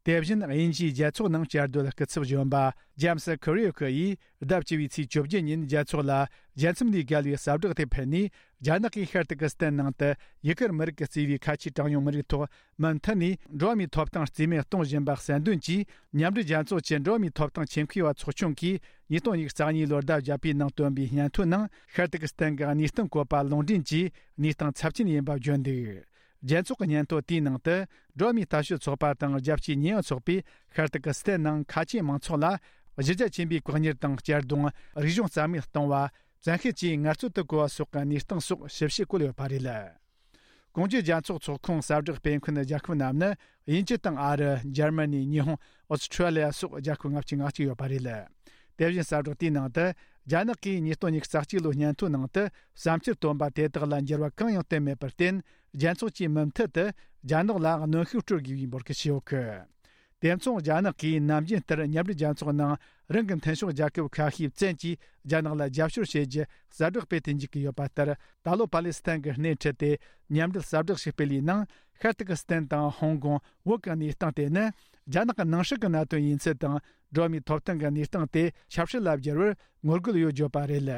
དེ་བཞིན་དབྱིན་ཇིའི་རྒྱལ་ཚོགས་ནང་བཅའ་སྡོད་སྐུ་ཚབ་གཞོན་པ་ཇེམ་སི་ཁུ་རི་ཡོ་ཁི་ཡིས་ཟླ་བཅུ་བའི་ཚེས་བཅོ་བརྒྱད་ཉིན་རྒྱལ་ཚོགས་ལ་རྒྱལ་མཚམས་ལས་བརྒལ་བའི་གསལ་བསྒྲགས་དེ་ཕུལ་ནས། རྒྱ་ནག་གིས་ཤར་ཏུར་ཀི་སི་ཐན་ནང་དུ་ཡུ་གུར་མི་རིགས་ཀྱིས་གཙོས་པའི་ཁ་ཆེའི་གྲངས་ཉུང་མི་རིགས་ཐོག་མུ་མཐུད་ནས་འགྲོ་བ་མིའི་ཐོབ་ཐང་རྩིས་མེད་གཏོང་བཞིན་པ་གསལ་འདོན་གྱིས། མཉམ་འབྲེལ་རྒྱལ་ཚོགས་ཀྱི་འགྲོ་བ་མིའི་ཐོབ་ཐང་ཆེད་མཁས་པ་ཚོགས་ཆུང་གིས་ཉིས་སྟོང་ཉི་ཤུ་རྩ་གཉིས་ལོར་ཟླ་བརྒྱད་པའི་ནང་བཏོན་པའི་སྙན་ཐོའི་ནང་། ཤར་ཏུར་ཀི་སི་ཐན་གྱི་གནས་སྟངས་བཀོད་པ་ལུང་འདྲེན་གྱིས་གནས་སྟངས་ཚབས་ཆེན་ཡིན་པ་བརྗོད་འདུག། རྒྱལ་ཚོགས་ཀྱི་སྙན་ཐོ་དེའི་ནང་དུ། འགྲོ་བ་མིའི་ལྟ་ཞིབ་ཚོགས་པ་དང་རྒྱལ་སྤྱིའི་ཉེས་ཡངས་ཚོགས་པས་ཤར་ཏུར་ཀི་སི་ཐན་ནང་ཁ་ཆེའི་མང་ཚོགས་ལ་གཞི་རྒྱ་ཆེན་པོའི་བཀག་ཉར་དང་གཅར་རྡུང་། རིག་གཞུང་རྩ་མེད་གཏོང་བ། བཙན་ཤེད་ཀྱིས་ངལ་རྩོལ་དུ་བཀོལ་བ་སོགས་ཀྱི་གནས་སྟངས་སོགས་ཞིབ་བཤེར་བཀོད་ཡོད་པ་རེད། གོང་ཞུས་རྒྱལ་ཚོགས་ཚོགས་ཁོངས་གསལ་བསྒྲགས་སྤེལ་མཁན་རྒྱལ་ཁབ་རྣམས་ནི། དབྱིན་ཇི་དང་ཨ་རི། འཇར་མ་ནི། ཉི་ཧོང་། ཨོ་སི་ཁྲུ་ལི་ཡ་སོགས་རྒྱལ་ཁབ་ལྔ་བཅུ་ང་གཅིག་ཡོད་པ་རེད། དེ་བཞིན་གསལ་བསྒྲགས་དེའི་ནང་དུ། རྒྱ་ནག་གིས་ཉིས་སྟོང་ཉི་ཤུ་རྩ་གཅིག་ལོའི་སྙན་ཐོའི་ནང་དུ་བསམ་འཆར་བཏོན་པ་དེ་དག་ལ་འགྱུར་བ་གང་ཡང་བཏོན་མེད་པར་བརྟེན། རྒྱལ་ཚོགས་ཀྱིས་མུ་མཐུད་དུ་རྒྱ་ནག་ལ་གནོན་ཤུགས་སྤྲོད་དགོས་པའི་འབོད་སྐུལ་ཞུས་ཡོད་གི། དེ་མཚུངས་རྒྱ་ནག་གིས་ནམ་རྒྱུན་ལྟར་མཉམ་འབྲེལ་རྒྱལ་ཚོགས་ནང་རང་གི་མཐུན་ཕྱོགས་རྒྱལ་ཁབ་ཁ་ཤས་བཙན་གྱིས་རྒྱ་ནག་ལ་རྒྱབ་སྐྱོར་བྱེད་རྒྱུ་གསལ་བསྒྲགས་སྤེལ་དུ་འཇུག་གི་ཡོད་པ་ལྟར། ད་ལོ་པ་ལི་སི་ཐན་གྱི་སྣེ་ཁྲིད་དེ་མཉམ་འབྲེལ་གསལ་བསྒྲགས་ཤིག་སྤེལ་བའི་ནང་། ཤར་ཏུར་ཀི་སི་ཐན་དང་ཧོང་ཀོང་། བོད་ཀྱི་གནས་སྟངས་དེ་ནི་རྒྱ་ནག་གི་ནང་སྲིད་ཀྱི་གནད་དོན་ཡིན་ཚུལ་དང་། འགྲོ་བ་མིའི་ཐོབ་ཐང་གི་གནས་སྟངས་དེ་ཆབ་སྲིད་ལ་བསྒྱུར་བར་ངོ་རྒོལ་ཡོད་བརྗོད་པ་རེད།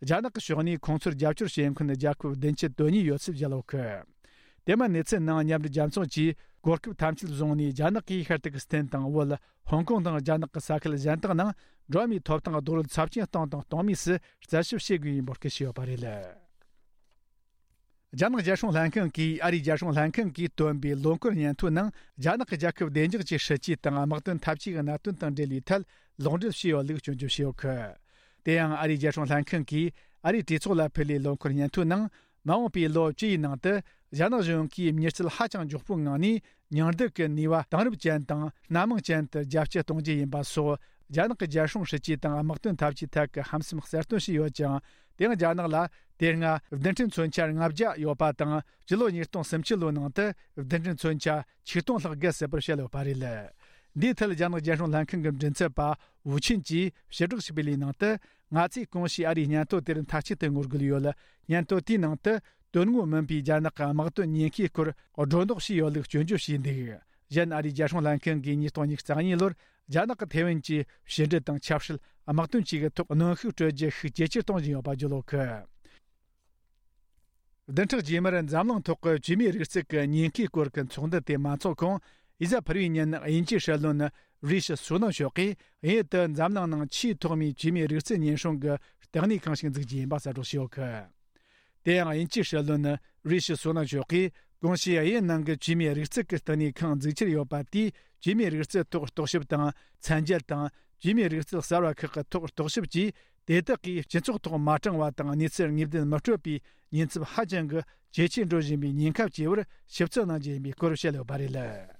རྒྱ་ནག་གི་ཕྱོགས་ནས་ཁོང་ཚོར་རྒྱབ་སྐྱོར་བྱེད་མཁན་རྒྱལ་ཁབ་བདུན་ཅུ་དོན་གཉིས་ཡོད་ཚུལ་བརྗོད་ཡོད་གི། དེ་མིན་གནས་ཚུལ་ནང་། མཉམ་འབྲེལ་རྒྱལ་ཚོགས་ཀྱིས་གོ་སྐབས་ཐམས་ཅད་བཟུང་ནས། རྒྱ་ནག་གིས་ཤར་ཏུར་ཀི་སི་ཐན་དང་བོད། ཧོང་ཀོང་དང་རྒྱ་ནག་གི་ས་ཁུལ་གཞན་དག་ནང་འགྲོ་བ་མིའི་ཐོབ་ཐང་རྡོག་རོལ་ཚབས་ཆེན་བཏང་དང་གཏོང་མུས་སུ་རྩད་ཞིབ་བྱེད་དགོས་པའི་འབོད་སྐུལ་ཞུས་ཡོད་པ་རེད། རྒྱ་ནག་རྒྱལ་སྲུང་ལྷན་ཁང་གིས། ཨ་རིའི་རྒྱལ་སྲུང་ལྷན་ཁང་གིས་བཏོན་པའི་ལོ་འཁོར་སྙན་ཐོའི་ནང་། རྒྱ་ནག་གི་རྒྱལ་ཁབ་བདེ་འཇགས་ཀྱི་སྲིད་ཇུས་དང་དམག་དོན་འཐབ་ཇུས་ཀྱི་གནད་དོན་དང་འབྲེལ་བའི་ཐད་ལོག་འགྲེལ་བྱས་ཡོད་ལུགས་སྐྱོན་བརྗོད་བྱས་ཡོད་གི། དེ་ཡང་ཨ་རིའི་རྒྱལ་སྲུང་ལྷན་ཁང་གིས་ཨ་རིའི་གྲོས་ཚོགས་ལ་ཕུལ་བའི་ལོ་འཁོར་སྙན་ཐོའི་ནང་། མ་འོངས་པའི་ལོ་བཅུ་ཡི་ནང་དུ་རྒྱ་ནག་གཞུང་གིས་མྱུར་ཚད་ཧ་ཅང་མགྱོགས་པོའི་ངང་ནས་མྱང་འདས་ཀྱི་ནུས་པ་དེང་རབས་ཅན་དང་སྣ་མང་ཅན་དུ་རྒྱ་སྐྱེད་གཏོང་རྒྱུ་ཡིན་པ་སོགས། རྒྱ་ནག་གི་རྒྱལ་སྲུང་སྲིད་ཇུས་དང་དམག་དོན་འཐབ་ཇུས་ཐད་ཀྱི་ཧམ་སེམས་གསལ་སྟོན་བྱས་ཡོད་ཅིང་། དེ་ཡང་རྒྱ་ནག་ལ་དེ་སྔ་རྡུལ་ཕྲན་མཚོན་ཆ་ལྔ་བརྒྱ་ཡོད་པ་དང་། སྤྱི་ལོ་ཉིས་སྟོང་སུམ་ཅུ་ལོའི་ནང་དུ་རྡུལ་ཕྲན་མཚོན་ཆ་ཆིག་སྟོང་ལྷག་བརྒལ་སྲིད་པར་བཤད་ཡོད་པ་རེད། འདིའི་ཐད་རྒྱ་ནག་རྒྱལ་སྲུང་ལྷན་ཁང་གི་མགྲིན་ཚབ་པ་ཝུ་ཆིན་གྱིས་ཞིབ་བསྒྲགས་ཤིག་སྤེལ་བའི་ནང་དུ། ང་ཚོས་གོང་ཞུས་ཨ་རིའི་སྙན་ཐོ་དེར་མཐའ་གཅིག་ཏུ་ངོ་རྒོལ་ཡོད། སྙན་ཐོ་དེའི་ནང་དུ། དོན་དངོས་མིན་པའི་རྒྱ་ནག་གི་དམག་དོན་ཉེན་ཁའི་སྐོར་སྒྲོ་འདོགས་བྱས་ཡོད་ལུགས་སྐྱོན་བརྗོད་བྱས་འདུག། གཞན། ཨ་རིའི་རྒྱལ་སྲུང་ལྷན་ཁང་གིས་ཉིས་སྟོང་ཉི་ཤུ་རྩ་གཉིས་ལོར་རྒྱ་ནག་གི་ཐེ་ཝན་གྱི་ཕྱི་འབྲེལ་དང་ཆབ་སྲིད། དམག་དོན་བཅས་ཀྱི་ཐོག་གནོན་ཤུགས་སྤྲོད་རྒྱུ་ཤུགས་ཇེ་ཆེར་གཏོང་བཞིན་ཡོད་པ་བརྗོད་ཡོད་གི། བདུན་ཕྲག་རྗེས་མར་འཛམ་གླིང་ཐོག་གི་བཅོས་མའི་རིག་རྩལ་གྱི་ཉེན་ཁའི་སྐོར་གྱི་ཚོགས་འདུ་དེ་མ་འཚོགས་གོང་། ཨི་ཟ་ཕུར་བུའི་ཉིན། དབྱིན་ཇིའི་སྲིད་བློན་རི་ཤི་སུ་ནག་མཆོག་གིས། དབྱིན་ཡུལ་དུ་འཛམ་གླིང་ནང་ཆེས་ཐོག་མའི་བཅོས་མའི་རིག་རྩལ་ཉེན་སྲུང་གི་ལྟེ་གནས་ཁང་ཞིག་འཛུགས་རྒྱུ་ཡིན་པ་གསལ་བསྒྲགས་བྱས་ཡོད་གི། དེ་ཡང་། དབྱིན་ཇིའི་སྲིད་བློན་རི་ཤི་སུ་ནག་མཆོག་གིས། གོང་ཞུས་དབྱིན་ཡུལ་ནང་གི་བཅོས་མའི་རིག་རྩལ་གྱི་ལྟེ་གནས་ཁང་འཛུགས་འཆར་ཡོད་པ་དེས། བཅོས་མའི་རིག་རྩལ་ཐོག་རྟོག་ཞིབ་དང་། ཚན་རྒྱལ་དང་། བཅོས་མའི་རིག་རྩལ་གསར་བ་ཁག་གི་ཐོག་རྟོག་ཞིབ་བཅས། དེ་དག་གིས་སྤྱི་ཚོགས་ཐོག་མ་དྲང་བ་དང་། གནས་ཚུལ་ངེས་བདེན་མི་སྤྲོད་པའི་ཉེན་ཚབས་ཧ་ཅང་གི་ཇེ་ཆེར་འགྲོ་བཞིན་པའི་ཉེན་ཁ་བཅས་པར་ཞིབ་རྩད་གནང་རྒྱུ་ཡིན་པའི་སྐོར་བཤད་ཡོད་པ་རེད།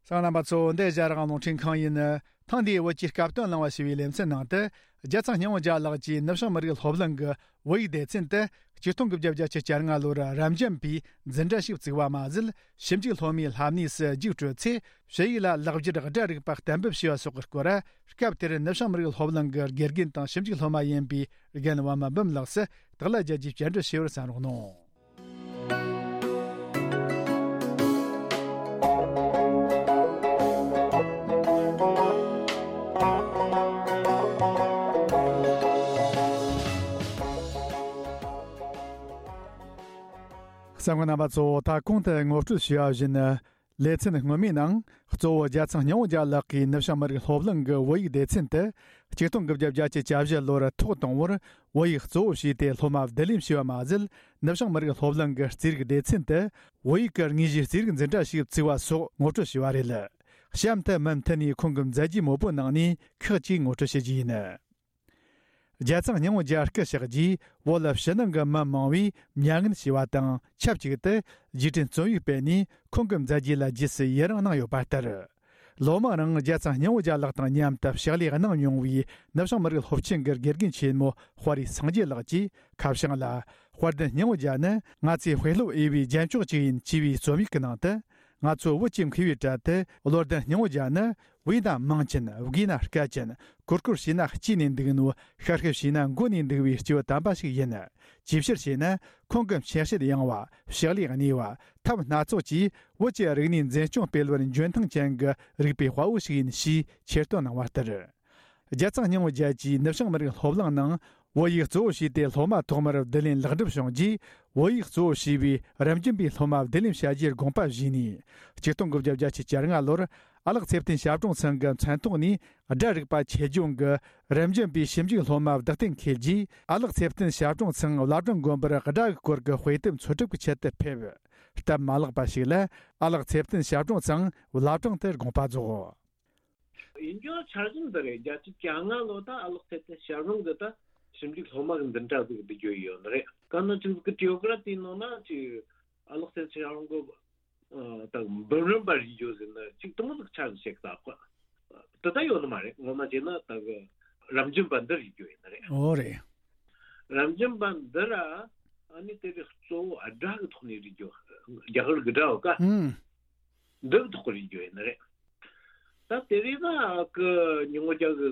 གསན་མཁན་རྣམ་པ་ཚོ། འདི་ཨེ་ཤ་ཡ་རང་དབང་རླུང་འཕྲིན་ཁང་ཡིན། ཐེངས་འདིའི་བོད་ཀྱི་སྐབས་དོན་གླེང་བ་ཞེས་པའི་ལེ་ཚན་ནང་དུ། རྒྱལ་ཚང་སྙིང་པོ་རྒྱལ་ལགས་ཀྱིས་ནུབ་བྱང་མི་རིགས་སློབ་གླིང་གི་བོད་ཡིག་སྡེ་ཚན་དུ་ཆིག་སྟོང་དགུ་བརྒྱ་བརྒྱད་ཅུ་གྱ་ལྔ་ལོར་རབ་འབྱམས་པའི་འཛིན་གྲྭ་ཞིག་བཙུགས་པ་མ་ཟད། ཞིབ་འཇུག་སློབ་མའི་ལྷབ་གནས་སུ་རྒྱུགས་སྤྲོད་ཚེ། ཞུ་ཡིག་ལ་ལེགས་སྒྱུར་སྒྲ་རིག་པ་གཏན་འབེབས་བྱས་པ་སོགས་ཀྱི་སྐོར། སྐབས་དེར་ནུབ་བྱང་མི་རིགས་སློབ་གླིང་གི་དགེ་རྒན་དང་ཞིབ་འཇུག་སློབ་མ་ཡིན་པའི་རྒན་པདྨ་འབུམ་ལགས་སུ་དག་ལ་རྒྱལ་གྱིས་བཅར་འདྲི་ཞུས་པར་གསན་རོགས་གནང་། གསན་མཁན་རྣམ་པ་ཚོ། ད་གོང་དུ་ངོ་སྤྲོད་ཞུས་པ་བཞིན། ལེ་ཚན་སྔོན་མའི་ནང་གཙོ་བོ་རྒྱལ་ཚང་སྙིང་པོ་རྒྱལ་ལགས་ཀྱིས་ནུབ་བྱང་མི་རིགས་སློབ་གླིང་གི་བོད་ཡིག་སྡེ་ཚན་དུ་ཆིག་སྟོང་དགུ་བརྒྱ་བརྒྱད་ཅུ་གྱ་བཞི་ལོར་ཐོག་དང་པོར་བོད་ཡིག་གཙོ་བོ་བྱས་ཏེ་སློབ་མ་བསྡུ་ལེན་བྱས་པ་མ་ཟད། ནུབ་བྱང་མི་རིགས་སློབ་གླིང་གི་རྩིས་རིག་སྡེ་ཚན་དུ་བོད་ཡིག་གི་དངོས་གཞིའི་རྩིས་རིག་འཛིན་གྲྭ་ཞིག་བཙུགས་པ་སོགས་ངོ་སྤྲོད་ཞུས་པ་རེད། གཤམ་དུ་མུ་མཐུད་ནས་ཁོང་གི་མཛད་རྗེས་མང་པོའི་ནང་ནས་ཁག་ཅིག་ངོ་སྤྲོད་བྱེད་རྒྱུ་ཡིན། རྒྱལ་ཚང་སྙིང་པོ་རྒྱལ་སྐུ་གཤེགས་རྗེས་བོད་ཕྱི་ནང་གི་མི་མང་བོས་མྱ་ངན་ཞུས་པ་དང་ཆབས་ཅིག་ཏུ་རྗེས་དྲན་རྩོམ་ཡིག་སྤེལ་ནས་ཁོང་གི་མཛད་རྗེས་ལ་རྗེས་སུ་ཡི་རང་གནང་ཡོད་པ་ལྟར། ལོ་མང་རིང་རྒྱལ་ཚང་སྙིང་པོ་རྒྱལ་ལགས་དང་མཉམ་དུ་ཕྱག་ལས་གནང་མྱོང་བའི་ནུབ་བྱང་མི་རིགས་སློབ་ཆེན་གྱི་དགེ་རྒན་ཆེན་མོ་དཔའ་རིས་སངས་རྒྱས་ལགས་ཀྱིས་ཁ་བྱང་ལ། དཔལ་ལྡན་སྙིང་པོ་རྒྱལ་ནི་ང་ཚོའི་དཔེ་སློབ་འོས་པའི་རྒྱན་མཆོག་ཅིག་ཡིན་ཅེས་པའི་རྩོམ་ཡིག་གི་ནང་དུ། ང་ཚོ་བོད་ཀྱི་མཁས་པའི་གྲལ་དུ་བློ་ལྡན་སྙིང་པོ་རྒྱལ་ནི་བོས་ན་མང་ཅན། བགོས་ན་དཀའ་ཅན། གུར་གུར་བྱས་ན་སྐྱེས་ནས་འདུག་ནོ། ཤར་ཤར་བྱས་ན་མགོ་ནས་འདུག་པའི་སྐྱེས་བུ་དམ་པ་ཞིག་ཡིན། ཅིའི་ཕྱིར་ཞེ་ན། ཁོང་གི་མཆེད་བྱེད་ཡངས་པ། ཕྱག་ལས་གནས་པ། ཐབས་སྣ་ཚོགས་ཀྱིས་བོད་ཀྱི་རིག་གནས་འཛིན་སྐྱོང་སྤེལ་བར་འཇོན་ཐང་ཅན་གྱི་རིག་པའི་དཔའ་བོ་ཞིག་ཡིན་ཞེས་ཆེ་བསྟོད་གནང་བ་ལྟར། རྒྱལ་ཚང་སྙིང་པོ་རྒྱལ་གྱིས་ནུབ་བྱང་མི་རིགས་སློབ་གླིང་ནང་བོད་ཡིག་གཙོ་བོ་བྱས་ཏེ་སློབ་མ་ཐོག་མར་བསྡུ་ལེན་ལེགས་འགྲུབ་བྱུང་རྗེས། བོད་ཡིག་གཙོ་བོ་བྱས་པའི་རབ་འབྱམས་པའི་སློབ་མ་བསྡུ་ལེན་བྱ་རྒྱུའི་དགོངས་པ་བཞེས་ནས། ཆིག་སྟོང་དགུ་བརྒྱ་བརྒྱད་ཅུ་གྱ་ལྔ་ལོར་ཨ་ལགས་ཚེ་བརྟན་ཞབས་དྲུང་ཚང་གི་མཚན་ཐོག་ནས་སྒྲ་རིག་པ་ཆེད་སྦྱོང་གི་རབ་འབྱམས་པའི་ཞིབ་འཇུག་སློབ་མ་བདག་གཏན་འཁེལ་རྗེས། ཨ་ལགས་ཚེ་བརྟན་ཞབས་དྲུང་ཚང་བླ་བྲང་དགོན་པར་སྒྲ་གི་སྐོར་གྱི་དཔེ་དེབ་འཚོལ་སྒྲུབ་ཀྱི་ཆེད་དུ་ཕེབས། སྟབས་མ་ལེགས་པ་ཞིག་ལ་ཨ་ལགས་ཚེ་བརྟན་ཞབས་དྲུང་ཚང་བླ་བྲང་དུ་དགོངས་པ་རྫོགས། ཡིན་རྒྱུ་འཆར་གཞི་འདི་རེད། བརྒྱད་ཅུ་གྱ་ལྔ་ལོ་ད་ཨ་ལགས་ཚེ་བརྟན་ཞབས་དྲུང་གི་ད་ཞིབ་འཇུག་སློབ་མ་གི་འཛིན་གྲྭ་ཟིག་བསྡུ་རྒྱུ་ཡོད་ནི་རེད། ག་ནོ་ཅིག་གི་ཊི་ཡོ་ག་ར་དེའི་ནང་ན་ཅིག་ཨ་ལགས་ཚེ་བརྟན་ཞབས་དྲུང་གི་ད་འབུམ་རམས་པ་རིག་རྒྱུ་ཟེར་ན་ཅིག་དུ་མོ་ཟིག་ཆ་ཟིག་ཞིག་ད་ཁོ་དེ་ད་ཡོད་ནི་མ་རེད། ངོ་མ་བྱས་ན་ད་གི་རབ་འབྱམས་པ་འདི་རིག་རྒྱུ་ཡིན་ནི་རེད། ཨོ་རེད། རབ་འབྱམས་པ་འདི་ར་ཨ་ནི་དེ་རིགས་གཙོ་བོ་སྒྲ་གི་ཐོག་ནས་རིག་རྒྱུ། རྒྱ་གར་གི་སྒྲ་བ་ཀ་ཨུམ། འདི་གི་ཐོག་གི་རིག་རྒྱུ་ཡིན་ནི་རེད། ད་དེ་རིང་ན་ཨ་ཁུ་ཉི་མ་རྒྱལ་གི་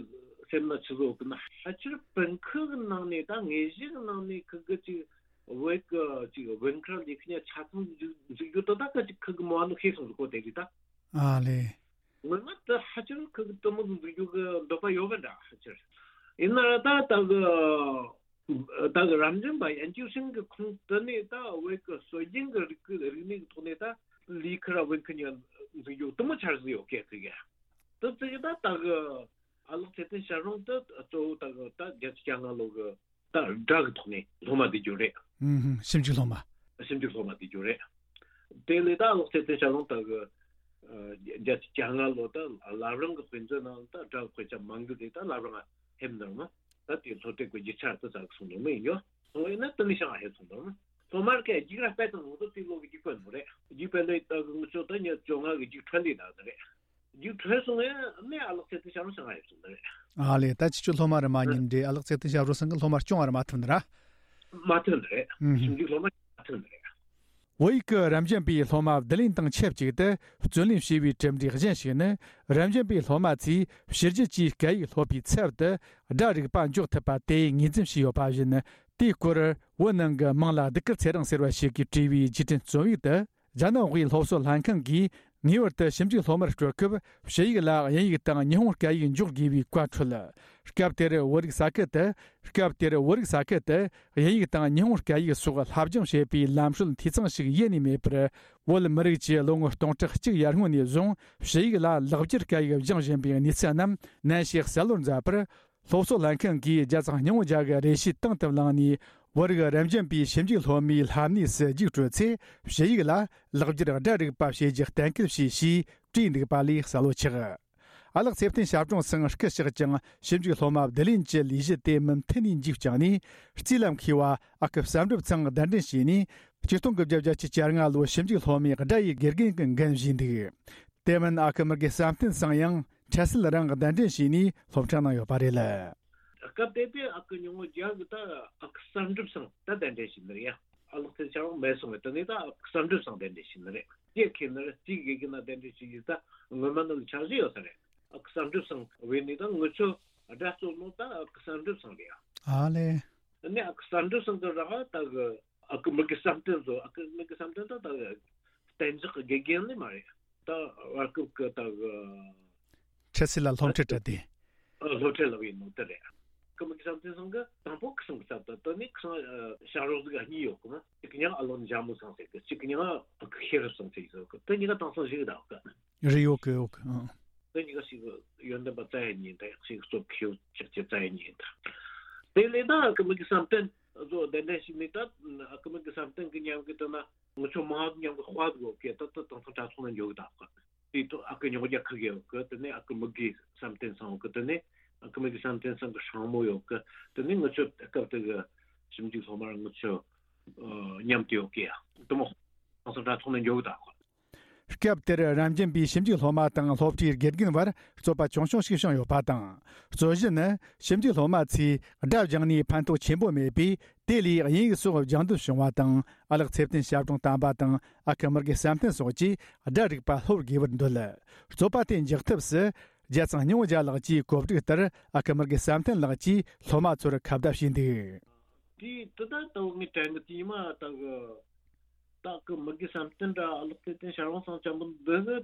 སེམས་ན་ཆི་བཟོ་གི་ན་ཕལ་ཆེར་པིན་ཁུ་གི་ནང་ནས་ད་དངོས་གཞི་གི་ནང་ནས་ཁུ་གི་ཅིག་བོད་གི་ཅིག་བོད་ཁ་ལི་ཁི་ཉ་ཆ་ཚང་འཛུགས་འཛུགས་རྒྱུ་དོ་ད་ཁ་ཅིག་ཁུ་གི་མོ་ཨ་ནུ་ཤེས་སོང་ཟིག་གོ་དེ་རིང་ད། ཨ་ལེ། ངོ་མ་ད་ཕལ་ཆེར་ཁུ་གི་དུ་མོ་འཛུགས་རྒྱུ་གི་འདོད་པ་ཡོད་པ་འདྲ་ཕལ་ཆེར། ཡིན་ན་ད་ད་གི་ད་གི་རབ་འབྱམས་པ་ཡན་ཆོད་ཤིང་གི་ཁོངས་དུ་ནས་ད་བོད་ཀྱི་སྲོལ་རྒྱུན་གྱི་རིག་རིག་གནས་ཀྱི་ཐོག་ནས་ད་ལི་ཁི་ར་བོད་ཁི་ཉ་འཛུགས་རྒྱུ་དུ་མོ་འཆར་གཞི་ཡོད་སྐད་ཅིག་ཡ། དུ་ཅིག་ད་ད་གི་ཨ་ལགས་ཚེ་བརྟན་ཞབས་དྲུང་དུ་གཙོ་བོ་ད་གི་ད་བརྒྱད་ཅུ་གྱ་ལྔ་ལོ་གི་ད་སྒྲ་གི་ཐོག་ནས་སློབ་མ་བསྡུ་རྒྱུ་རེད། ཨུམ་ཧུམ། ཞིབ་འཇུག་སློབ་མ། ཞིབ་འཇུག་སློབ་མ་བསྡུ་རྒྱུ་རེད། དེ་ལས་ད་ཨ་ལགས་ཚེ་བརྟན་ཞབས་དྲུང་ད་གི་བརྒྱད་ཅུ་གྱ་ལྔ་ལོ་ད་བླ་བྲང་གི་དཔེ་མཛོད་ནང་ད་སྒྲ་གི་དཔེ་ཆ་མང་རྒྱུ་དེ་ད་བླ་བྲང་ང་ཕེབས་འདུག་མ། ད་དེ་སློབ་གྲྭའི་གི་རྒྱུ་ཆ་དུ་ཙག་སོང་ནོ་མི་ཡིན་ཡོ། སོང་ཡིན་ན་དུ་ནི་ཤང་ཧེ་སོང་ནོ་མ། སློབ་མར་ཁའི་རྒྱུགས་ར་སྤེལ་དང་ངོ་ཏོ་དེ་ལོ་གི་རྒྱུགས་སྤེལ་ནོ་རེད། རྒྱུགས་སྤེལ་ལོས་ད་གི་ངུ་ཆོ་ད་ཉ་བཅོ་ལྔ་གི་རྒྱུགས་འཕྲོད་ལས་ད་ད་རེད། རྒྱུགས་འཕྲོད་སོང་ཡ་ནི་ཨ་ལགས་ཚེ་བརྟན་ཞབས་དྲུང་ཤང་ཧེ་སོང་ད་རེད། ཨ་ལེ། ད་ཅི་ཆོ་སློབ་མ་རེ་མ་ཉིན་རེ་ཨ་ལགས་ཚེ་བརྟན་ཞབས་དྲུང་སང་གི་སློབ་མར་སྐྱོང་བ་རེ་མ་ཐུབ་ནི་ར། མ་ཐུབ་ནི་རེད། ཨུམ་ཧུམ། ཞིབ་འཇུག་སློབ་མ་མ་ཐུབ་ནི་རེད། བོད་ཡིག་གི་རབ་འབྱམས་པའི་སློབ་མ་བསྡུ་ལེན་དང་ཆབས་ཅིག་ཏུ་བརྩོན་ལེན་བྱས་པའི་གྲུབ་འབྲས་གཞན་ཞིག་ནི། རབ་འབྱམས་པའི་སློབ་མ་ཚོས་ཕྱི་རྒྱལ་གྱི་སྐད་ཡིག་སློབ་པའི་ཚབ་ཏུ་སྒྲ་རིག་པ་འཇོག་ཐུབ་པ་དེ་ངོས་འཛིན་བྱས་ཡོད་པ་བཞིན། དེའི་སྐོར་བོད་ནང་གི་དམངས་ལ་གདུགས་དཀར་ཚེ་རིང་ཟེར་བ་ཞིག་གིས་བྲིས་པའི་རྗེས་དྲན་རྩོམ་ཡིག་ཏུ། རྒྱ་ནག་དབུས་སློབ་གསོ་ལྷན་ཁང་གིས་ངེས་པར་དུ་ཞིབ་འཇུག་སློབ་མར་སྤྲོད་སྐབས་ཕྱི་ཡིག་ལ་དབྱིན་ཡིག་དང་ཉི་ཧོང་སྐད་ཡིག་འཇོག་དགོས་པའི་བཀའ་འཁྲོལ། སྐབས་དེར་བོད་རིགས་ས་ཁུལ་དུ། སྐབས་དེར་བོད་རིགས་ས་ཁུལ་དུ་དབྱིན་ཡིག་དང་ཉི་ཧོང་སྐད་ཡིག་སོགས་སློབ་སྦྱོང་བྱེད་པའི་ལམ་སྲོལ་འཐུས་ཚང་ཞིག་ཡེ་ནས་མེད་པར། བོད་མི་རིགས་ཀྱིས་ལོ་ངོ་སྟོང་ཕྲག་གཅིག་ཡར་སྔོན་ནས་བཟུང་ཕྱི་ཡིག་ལ་ལེགས་སྦྱར་སྐད་ཡིག་སྦྱང་བཞིན་པའི་གནས་ཚུལ་རྣམས་ནན་ཞིག་གསལ་བོར་མཛད་པར། སློབ་གསོ་ལྷན་ཁང་གིས་རྒྱལ་ཚང་སྙིང་པོ་རྒྱལ་གྱི་རེ་ཞུའི་དང་དུ་བླངས་ནས། བོད་རིགས་རབ་འབྱམས་པའི་ཞིབ་འཇུག་སློབ་མའི་ལྷབ་གནས་སུ་རྒྱུགས་སྤྲོད་ཚེ། ཕྱི་ཡིག་ལ་ལེགས་སྦྱར་སྒྲ་རིག་པ་བྱེད་རྒྱུ་གཏན་འཁེལ་བྱས་ཞེས་བྲིས་འདུག་པ་ལས་གསལ་བོ་ཆགས། ཨ་ལགས་ཚེ་བརྟན་ཞབས་དྲུང་ཚང་སྐུ་གཤེགས་ཀྱང་ཞིབ་འཇུག་སློབ་མ་བསྡུ་ལེན་གྱི་ལས་གཞི་དེ་མུ་མཐུད་ནས་མཇུག་བསྐྱངས་ནས། རྩིས་ལམ་མཁས་པ་ཨ་ཁུ་བསམ་གྲུབ་ཚང་གདན་འདྲེན་བྱས་ནས། ཆིག་སྟོང་དགུ་བརྒྱ་བརྒྱད་ཅུ་གྱ་ལྔ་ལོའི་ཞིབ་འཇུག་སློབ་མའི་སྒྲ་ཡི་དགེ་རྒན་གྱི་འགན་བཞེས་འདུག་དེ་མིན་ཨ་ཁུ་མི་དགེ་བསམ་གཏན་ཚང་ཡང་འཕྲལ་སེལ་རང་གདན་འདྲེན་བྱས་ནས་སློབ་ཁྲིད་གནང་ཡོད་པ་རེད། སྐབས་དེ་དུས་ཨ་ཁུ་ཉུང་ངུ་རྒྱ་གི་ད་ཨ་ཁུ་བསམ་གྲུབ་ཚང་ད་གདན་འདྲེན་བྱས་ནི་རེད་ཡ། ཨ་ལགས་ཚེ་ཆར་མེད་སོང་བས་དེ་ནས་ད་ཨ་ཁུ་བསམ་གྲུབ་ཚང་གདན་འདྲེན་བྱས་ནི་རེད། སྐྱེ་ཁེ་ནི་རེད་སྐྱེ་དགེ་གི་ན་གདན་འདྲེན་བྱས་ཡོད་ད་སྔོན་མ་ནང་ལ་འཆར་གཞི་ཡོད་ས་རེད། ཨ་ཁུ་བསམ་གྲུབ་ཚང་བས་ནི་ད་ངུ་ཆོ་སྒྲ་གཙོ་ནོ་ད་ཨ་ཁུ་བསམ་གྲུབ་ཚང་རེད་ཡ། ཨ་ལེ། ནི་ཨ་ཁུ་བསམ་གྲུབ་ཚང་གི་ར་ད་གི་ཨ་ཁུ་མི་དགེ་བསམ་གཏན་ཚོ་ཨ་ཁུ་མི་དགེ་བསམ་གཏན་ད་ད་གཏན་འཇགས་ཀྱི་དགེ་རྒན་ནི་མ་རེད། ད་བར་སྐབས་ཀྱི་ད་འཕྲལ་སེལ་ལ་སློབ་ཁྲིད་སྤྲད་དེ། སློབ་ཁྲིད་ལབ་ཡིན་ནོ་དེ་རེད། ཨ་ཁུ་མི་དགེ་བསམ་གཏན་ཚང་གི་དང་པོ་ཁུ་སང་གི་ཚབ་ད་ད་ནི་ཁུ་སང་ཞབས་རོགས་ཟིག་གཉིས་ཡོད་གི་མ། ཡང་ཨ་ལོ་འཇམ་མོ་སང་ཟེར་གི། གཅིག་གི་ཡང་ཨ་ཁུ་ཤེས་རབ་སང་ཟེར་གི། དེ་གཉིས་ཀ་དེང་སང་ཞིག་གདའ་གི། རེད། ཡོད་གི། ཡོད་གི། ཨང་། དེ་གཉིས་ཀ་ཞིག་ཡོན་ཏན་པ་རྩ་ཡ་ཉིད་དང་ཞིག་སྟོབས་ཁེའུ་ཅག་ཅེ་རྩ་ཡ་ཉིད་དང་། དེ་ལས་ད་ཨ་ཁུ་མི་གི་བསམ་གཏན་བཟོ་གདན་འདྲེན་ཞིག་ནི། ད་ཨ་ཁུ་མི་གི་བསམ་གཏན་གི་ཉམས་གི་དེ་ན་ངུ་ཆོ་མང་ཉམས་གི་དཔའ་གི་ཡོད་གི། ད་ད་དེང་སང་དྲ་ཚོགས་ན་འཇོག་གདའ་གི། དེ་ཐོག་ཨ་ཁུ་ཉོག་རྒྱ་ཁ་གི་ཡོད་གི། དེ་ནས་ཨ་ཁུ་མི་གི་བསམ་གཏན་སང་ཡོད་གི། དེ་ནས་ཨ་ཁུ་མི་གི་བསམ་གཏན་སང་གི་སྲང་མོ་ཡོད་གི། དེ་ནས་ངུ་ཆོ་སྐབས་དེ་གི་ཞིབ་འཇུག་སློབ་མར་ངུ་ཆོ་ཉམས་དེ་ཡོད་གི། ཡ་དེ་མོ་དེང་སང་དྲ་ཚོགས་ན་འཇོག་གདའ་གི། སྐབས་དེར་རབ་འབྱམས་པའི་ཞིབ་འཇུག་སློབ་མ་དང་སློབ་གྲྭའི་དགེ་རྒན་བར་རྩོད་པ་ཆུང་ཆུང་ཞིག་བྱུང་ཡོད་པ་དང་། རྩོད་གཞི་ནི་ཞིབ་འཇུག་སློབ་མ་ཚོས་སྒྲ་སྦྱངས་ནས་ཕན་ཐོགས་ཆེན་པོ་མེད་པས། དེ་ལས་དབྱིན་ཡིག་སོགས་སྦྱང་འདོད་བྱུང་བ་དང་། ཨ་ལགས་ཚེ་བརྟན་ཞབས་དྲུང་དམ་པ་དང་ཨ་ཁུ་མི་དགེ་བསམ་གཏན་སོགས་ཀྱིས་སྒྲ་རིག་པ་སློབ་དགོས་པར་འདོད། རྩོད་པ་དེ་འཇགས་ཐབས་སུ་རྒྱལ་ཚང་སྙིང་བོ་རྒྱལ་ལགས་ཀྱིས་གོ་སྒྲིག་ལྟར་ཨ་ཁུ་མི་དགེ་བསམ་གཏན་ལགས་ཀྱིས་སློབ་མ་ཚོར་ཁ་བརྡ་བྱས་འདུག། དེ་དེ་ད་ལྟ་བུ་ངས་དྲན་གི། དེ་ཉི་མ་ད་གི་ད་གི་མི་དགེ་བསམ་གཏན་ར་ཨ་ལགས་ཚེ་བརྟན་ཞབས་དྲུང་སང་ཅན་པོ་འདི་གི་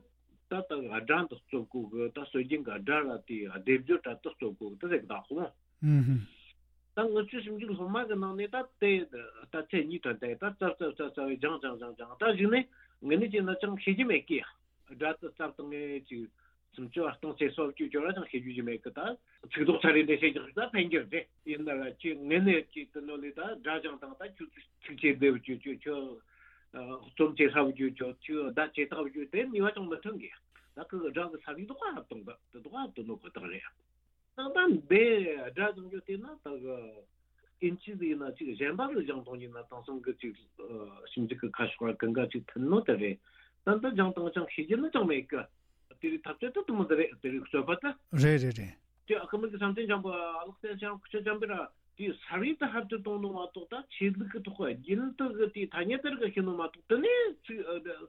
ད་ད་གི་སྒྲ་འདི་རྩོད་གོ་གི། ད་སྲོལ་རྒྱུན་གི་སྒྲ་ར་དེ་སྡེབ་སྦྱོར་ར་དེ་རྩོད་གོ་གི། དེ་ཟེར་གི་ད་ཧོ། ཨུམ་ཧུམ། ད་ངུ་ཆོ་ཞིབ་འཇུག་སློབ་མ་གི་ནང་ནས་ད་དེ་ད་ཚེ་གཉིས་ཐོན་ཏེ་ད་རྩབ་རྩབ་རྩབ་རྩབ་སྦྱངས་སྦྱངས་སྦྱངས་སྦྱངས། ད་གཞུག་ནས་ངེད་ནི་ཅི་ན་ཅང་ཤེས་ཀྱི་མེད་གི། སྒྲ་དེ་རྩབ་དང་ངེད་ཅིག་སུམ་ཅུ་བ་སྟོང་ཚེ་སོ་བཅུ་ཅོ་ར་ཅང་ཤེས་རྒྱུ་ཅི་མེད་གི། ད་ཚིག་རྡོག་ཚ་རེ་འདྲེ་ཤེས་ཀྱང་ད་ཕན་གྱི་རེད། ཡིན་ན་ར་ཅི་ངེད་ནི་ཅི་དེ་ནོ་ལི་ད་སྒྲ་སྦྱངས་དང་ད་ཁྱོད་ཚིག་ཆེ་བདེ་བ་ཅོ་ཅོ་ཅོ། རྩོམ་ཆེ་ཧྲ་བ་ཅོ་ཅོ་ཅོ། ད་ཆེ་ཐག་བ་ཅོ། དེ་ནི་བ་ཅང་མི་མཐུན་གི། ད་ཁོ་གི་སྒྲ་གི་ས་ལི་རྡོག་ཧ་བཏང་ད་དེ་རྡོག་ཧ་བཏང་ནོ་ཁོ་ཐག་རེད། ད་ད་འདི་སྒྲ་སྦྱང་རྒྱུ་དེ་ན་ད་གི་ཨིན་ཇི་ཟིག་ཡིན་ན་ཅིག་གཞན་པ་གི་སྦྱང་སྟངས་ཡིན་ན་དེང་སང་གི་ཅིག་ཞིབ་འཇུག་གི་ཁ་ཕྱོགས་ར་གང་ག་ཅིག་མཐུན་ནོ་དེ་རེད། ད་འདི་སྦྱང་སྟངས་ཅང་ཤེས་ཀྱི་ནི་ཅང་མེད་གི། དེ་རིགས་ཐབས་ཚད་ད་དུ་མོ་དེ་རེད། དེ་རིགས་རྩོད་པ་ད། རེད་རེད་རེད། དེ་ཨ་ཁུ་མི་གི་བསམ་གཏན་འཇམ་པོ་ཨ་ལགས་བསྟན་ཤང་ཁུ་ཆ་འཇམ་པོ་ར་དེ་ས་རིས་ད་ཧར་དུ་གཏོང་ནོ་མ་གཏོགས། ད་ཆོས་ལུགས་གི་ཐོག་རྒྱུན་དུ་གི་དེ་ཐ་སྙད་དེ་རིགས་གི་ཤེས་ནོ་མ་གཏོགས། དེ་ནས་ཚིག་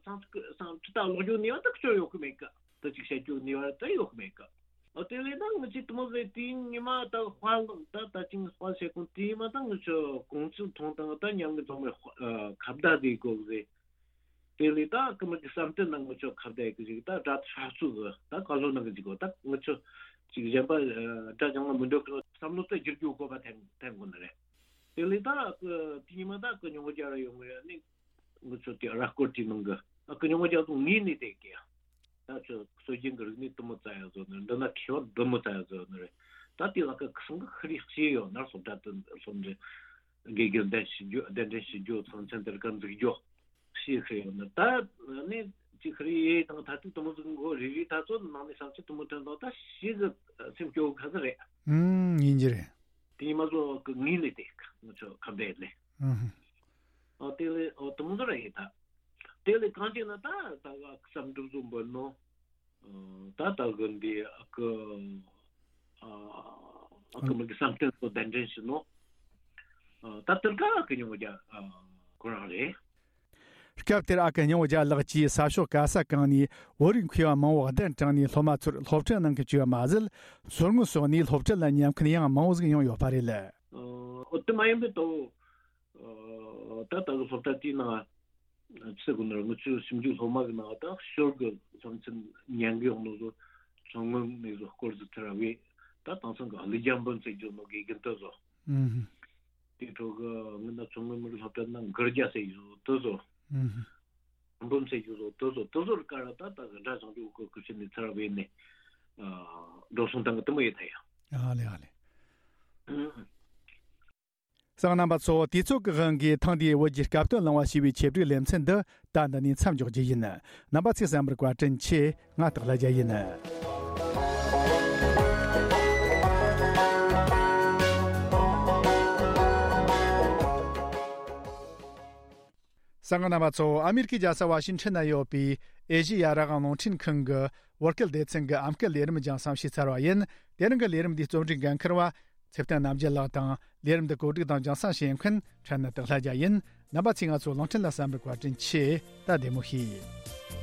སང་ཚིག་སང་ཁྲི་ད་ཀློག་རྒྱུ་ནི་བ་ད་ཁུ་ཆོ་ཡོད་གི་མེད་གི། ད་ཅིག་བཤད་རྒྱུ་ནི་བ་ད་ཡོད་གི་མེད་གི། ཨོ་དེ་ལས་ད་ངི་ཅི་དུ་མོ་ཟེ་དེའི་ཉི་མ་ད་དཔའ་ལོང་ད་ད་ཅིང་དཔའ་ཆེ་གོང་དེའི་མ་ད་ངི་ཆོ་གོང་ཚུལ་ཐོང་དང་ད་ཉང་གི་ཚོང་མའི་ཁ་བརྡ་དེ་གོ་ཟེ། དེ་ལས་ད་ཀི་མི་གི་བསམ་གཏན་ན་ངི་ཆོ་ཁ་བརྡ་གི་ཞིག་ད་སྒྲ་ཧྲ་ཚུགས་གི་ད་ཀ་ལོ་ན་གི་ཅིག་གོ། ད་ངི་ཆོ་ཅིག་གཞན་པ་སྒྲ་ཅང་ལ་མི་འགྲོ་གི་བསམ་བློ་ད་བསྒྱུར་རྒྱུ་དགོས་པ་ཐེན་ཐེན་གོ་ནི་རེད། དེ་ལས་ད་དེའི་ཉི་མ་ད་ཀི་ཉོ་རྒྱ་ར་ཡོང་གི་ཡོད་ནི། ངུ་ཚོ་དེ་ར་སྐོར་དེ་ནང་གི་ཨ་ཀི་ཉོ་རྒྱ་ཚོ་ངེས་ནས་དེ་གི། ད་ཚོ་སྲོལ་རྒྱུན་གི་རིག་གནས་དུ་མོ་ཙ་ཡ་བཟོ་ནི་འདི་ན་ཁེ་བ་དུ་མོ་ཙ་ཡ་བཟོ་ནི་རེད། ད་དེ་ལ་ཀི་ཁི་སང་གི་ཁི་རི་ཤེས་ཡོད་ན་སློབ་གྲྭ་དུ་སློབ་འབྲིང་དགེ་རྒན་གདན་ཞུ་རྒྱུ་གདན་འདྲེན་ཞུ་རྒྱུ་ཚང་ཚན་དེར་ཀ་འཛུགས་རྒྱུ་ཤེས་ཁི་ཡོད་ན། ད་ནི་ཅི་ཁི་རི་ཡེ་དང་ད་དུ་དུ་མོ་ཟིག་མགོ་རི་རི་ད་ཚོ་ནང་ནས་བསམ་ཚུལ་དུ་མོ་ཐོན་དང་ད་ཤེས་གི་སེམས་སྐྱོ་གི་ཁ་ཚ་རེད། ཨུམ་ཡིན་གྱི་རེད། དེ་ཉི་མ་ཚོ་གི་ངེས་ནས་དེ་ང་ཚོ་ཁ་བརྡ་ལས། ཨུམ། ཨོ་དེ་ལས་ཨོ་དུ་མོ་ཚོ་ར་ཡིན་ད། དེ་ལས་གང་ཅི་ན་ད་ད་ག་བསམ་འགྲུབ་བཟོ་འབོད་ནོ། ད་ད་གི་འདི་ཨ་ཀི་ཨ་ཀི་མི་གི་བསམ་གཏན་ཚོ་གདན་འདྲེན་ཞུ་ནོ། ད་དེར་ཀ་ཨ་ཀི་ཉོ་རྒྱ་ཁོ་རང་རེད། སྐབས་དེར་ཨ་ཀི་ཉོ་རྒྱ་ལགས་ཀྱིས་ས་ཕྱོགས་ག་ས་གང་ནས་བོད་རིགས་མཁས་པ་མང་བོ་གདན་དྲངས་ནས་སློབ་མ་ཚོར་སློབ་ཁྲིད་གནང་གི་བཅུག་པ་མ་ཟད། མཚོ་སྔོན་སོགས་ནས་སློབ་ཁྲིད་ལ་མཉམ་འཁུན་ཡང་མང་བོ་ཟིག་ཡོང་ཡོད་པ་རེད། ཨོ་དེ་མ་ཡིན་པའི་ཏོ། ད་ལྟ་གི་སློབ་གྲྭ་དེའི་ནང་ཚིག་གོ་ནར་ངུ་ཆུ་ཞིབ་འཇུག་སློབ་མ་གི་ནང་ད་ཤོར་གི་བསམ་ཚུལ་ཉན་གི་ཡོང་ནོ་ཚོ་མཚོ་སྔོན་ནས་བཟོ་སྐོར་ཟིག་ཐར་བས། ད་དེང་སང་གི་ཨ་ལི་རྒྱ་འབུམ་ཟེར་རྒྱུ་ནོ་དགེ་རྒན་དེ་ཚོ། ཨུམ། དེ་འཕྲོ་གི་ངི་ན་མཚོ་སྔོན་མི་རིགས་སློབ་གྲྭ་ན་མགུར་རྒྱ་ཟེར་རྒྱུ་དེ་ཚོ། ཨུམ། འབུམ་ཟེར་རྒྱུ་ཚོ་དེ་ཚོ་དེ་ཚོར་ཀ་ར་ད་ད་གི་འདྲ་བྱང་ཆུབ་གི་སྐུ་ཕྱིན་ནས་ཚར་བས་ནས་འགྲོ་སོང་བཏང་གི་དེ་མོ་ཡོད་ད་ཡ། ཨ་ལེ་ཨ་ལེ། ཨུམ། གསན་མཁན་རྣམ་པ་ཚོ། དུས་ཚོད་ཀྱི་དབང་གིས་ཐེངས་འདིའི་བོད་ཀྱི་སྐབས་དོན་གླེང་བ་ཞེས་པའི་ཆེད་སྒྲིག་ལེ་ཚན་འདི་ད་འདི་ནས་མཚམས་འཇོག་རྒྱུ་ཡིན། རྣམ་པ་ཚོས་གསན་པར་བཀའ་དྲིན་ཆེ། ང་སྟག་ལྷ་རྒྱལ་ཡིན། གསན་མཁན་རྣམ་པ་ཚོ། ཨ་མེ་རི་ཁའི་རྒྱལ་ས་ཝ་ཤིང་ཊོན་ན་ཡོད་པའི་ཨེ་ཤེ་ཡ་རང་དབང་རླུང་འཕྲིན་ཁང་གི་བོད་སྐད་སྡེ་ཚན་གྱི་ཨམ་སྐད་ལས་རིམ་རྒྱང་སྲིང་ཞུས་ཚར་བ་ཡིན། དེ་རིང་གི་ལས་རིམ་འདིའི་རྩོམ་སྒྲིག་འགན་འཁུར་བ་ཚེ་བརྟན་རྣམ་རྒྱལ་ལགས་དང་། ལས་རིམ་འདི་གོ་སྒྲིག་དང་རྒྱང་སྲིང་བྱེད་མཁན་ཁྲན་ནི་སྟག་ལྷ་རྒྱལ་ཡིན། རྣམ་པ་ཚོས་ང་ཚོའི་རླུང་འཕྲིན་ལ་གསན་པར་བཀའ་དྲིན་ཆེ། ད་བདེ་མོ་བྱོས།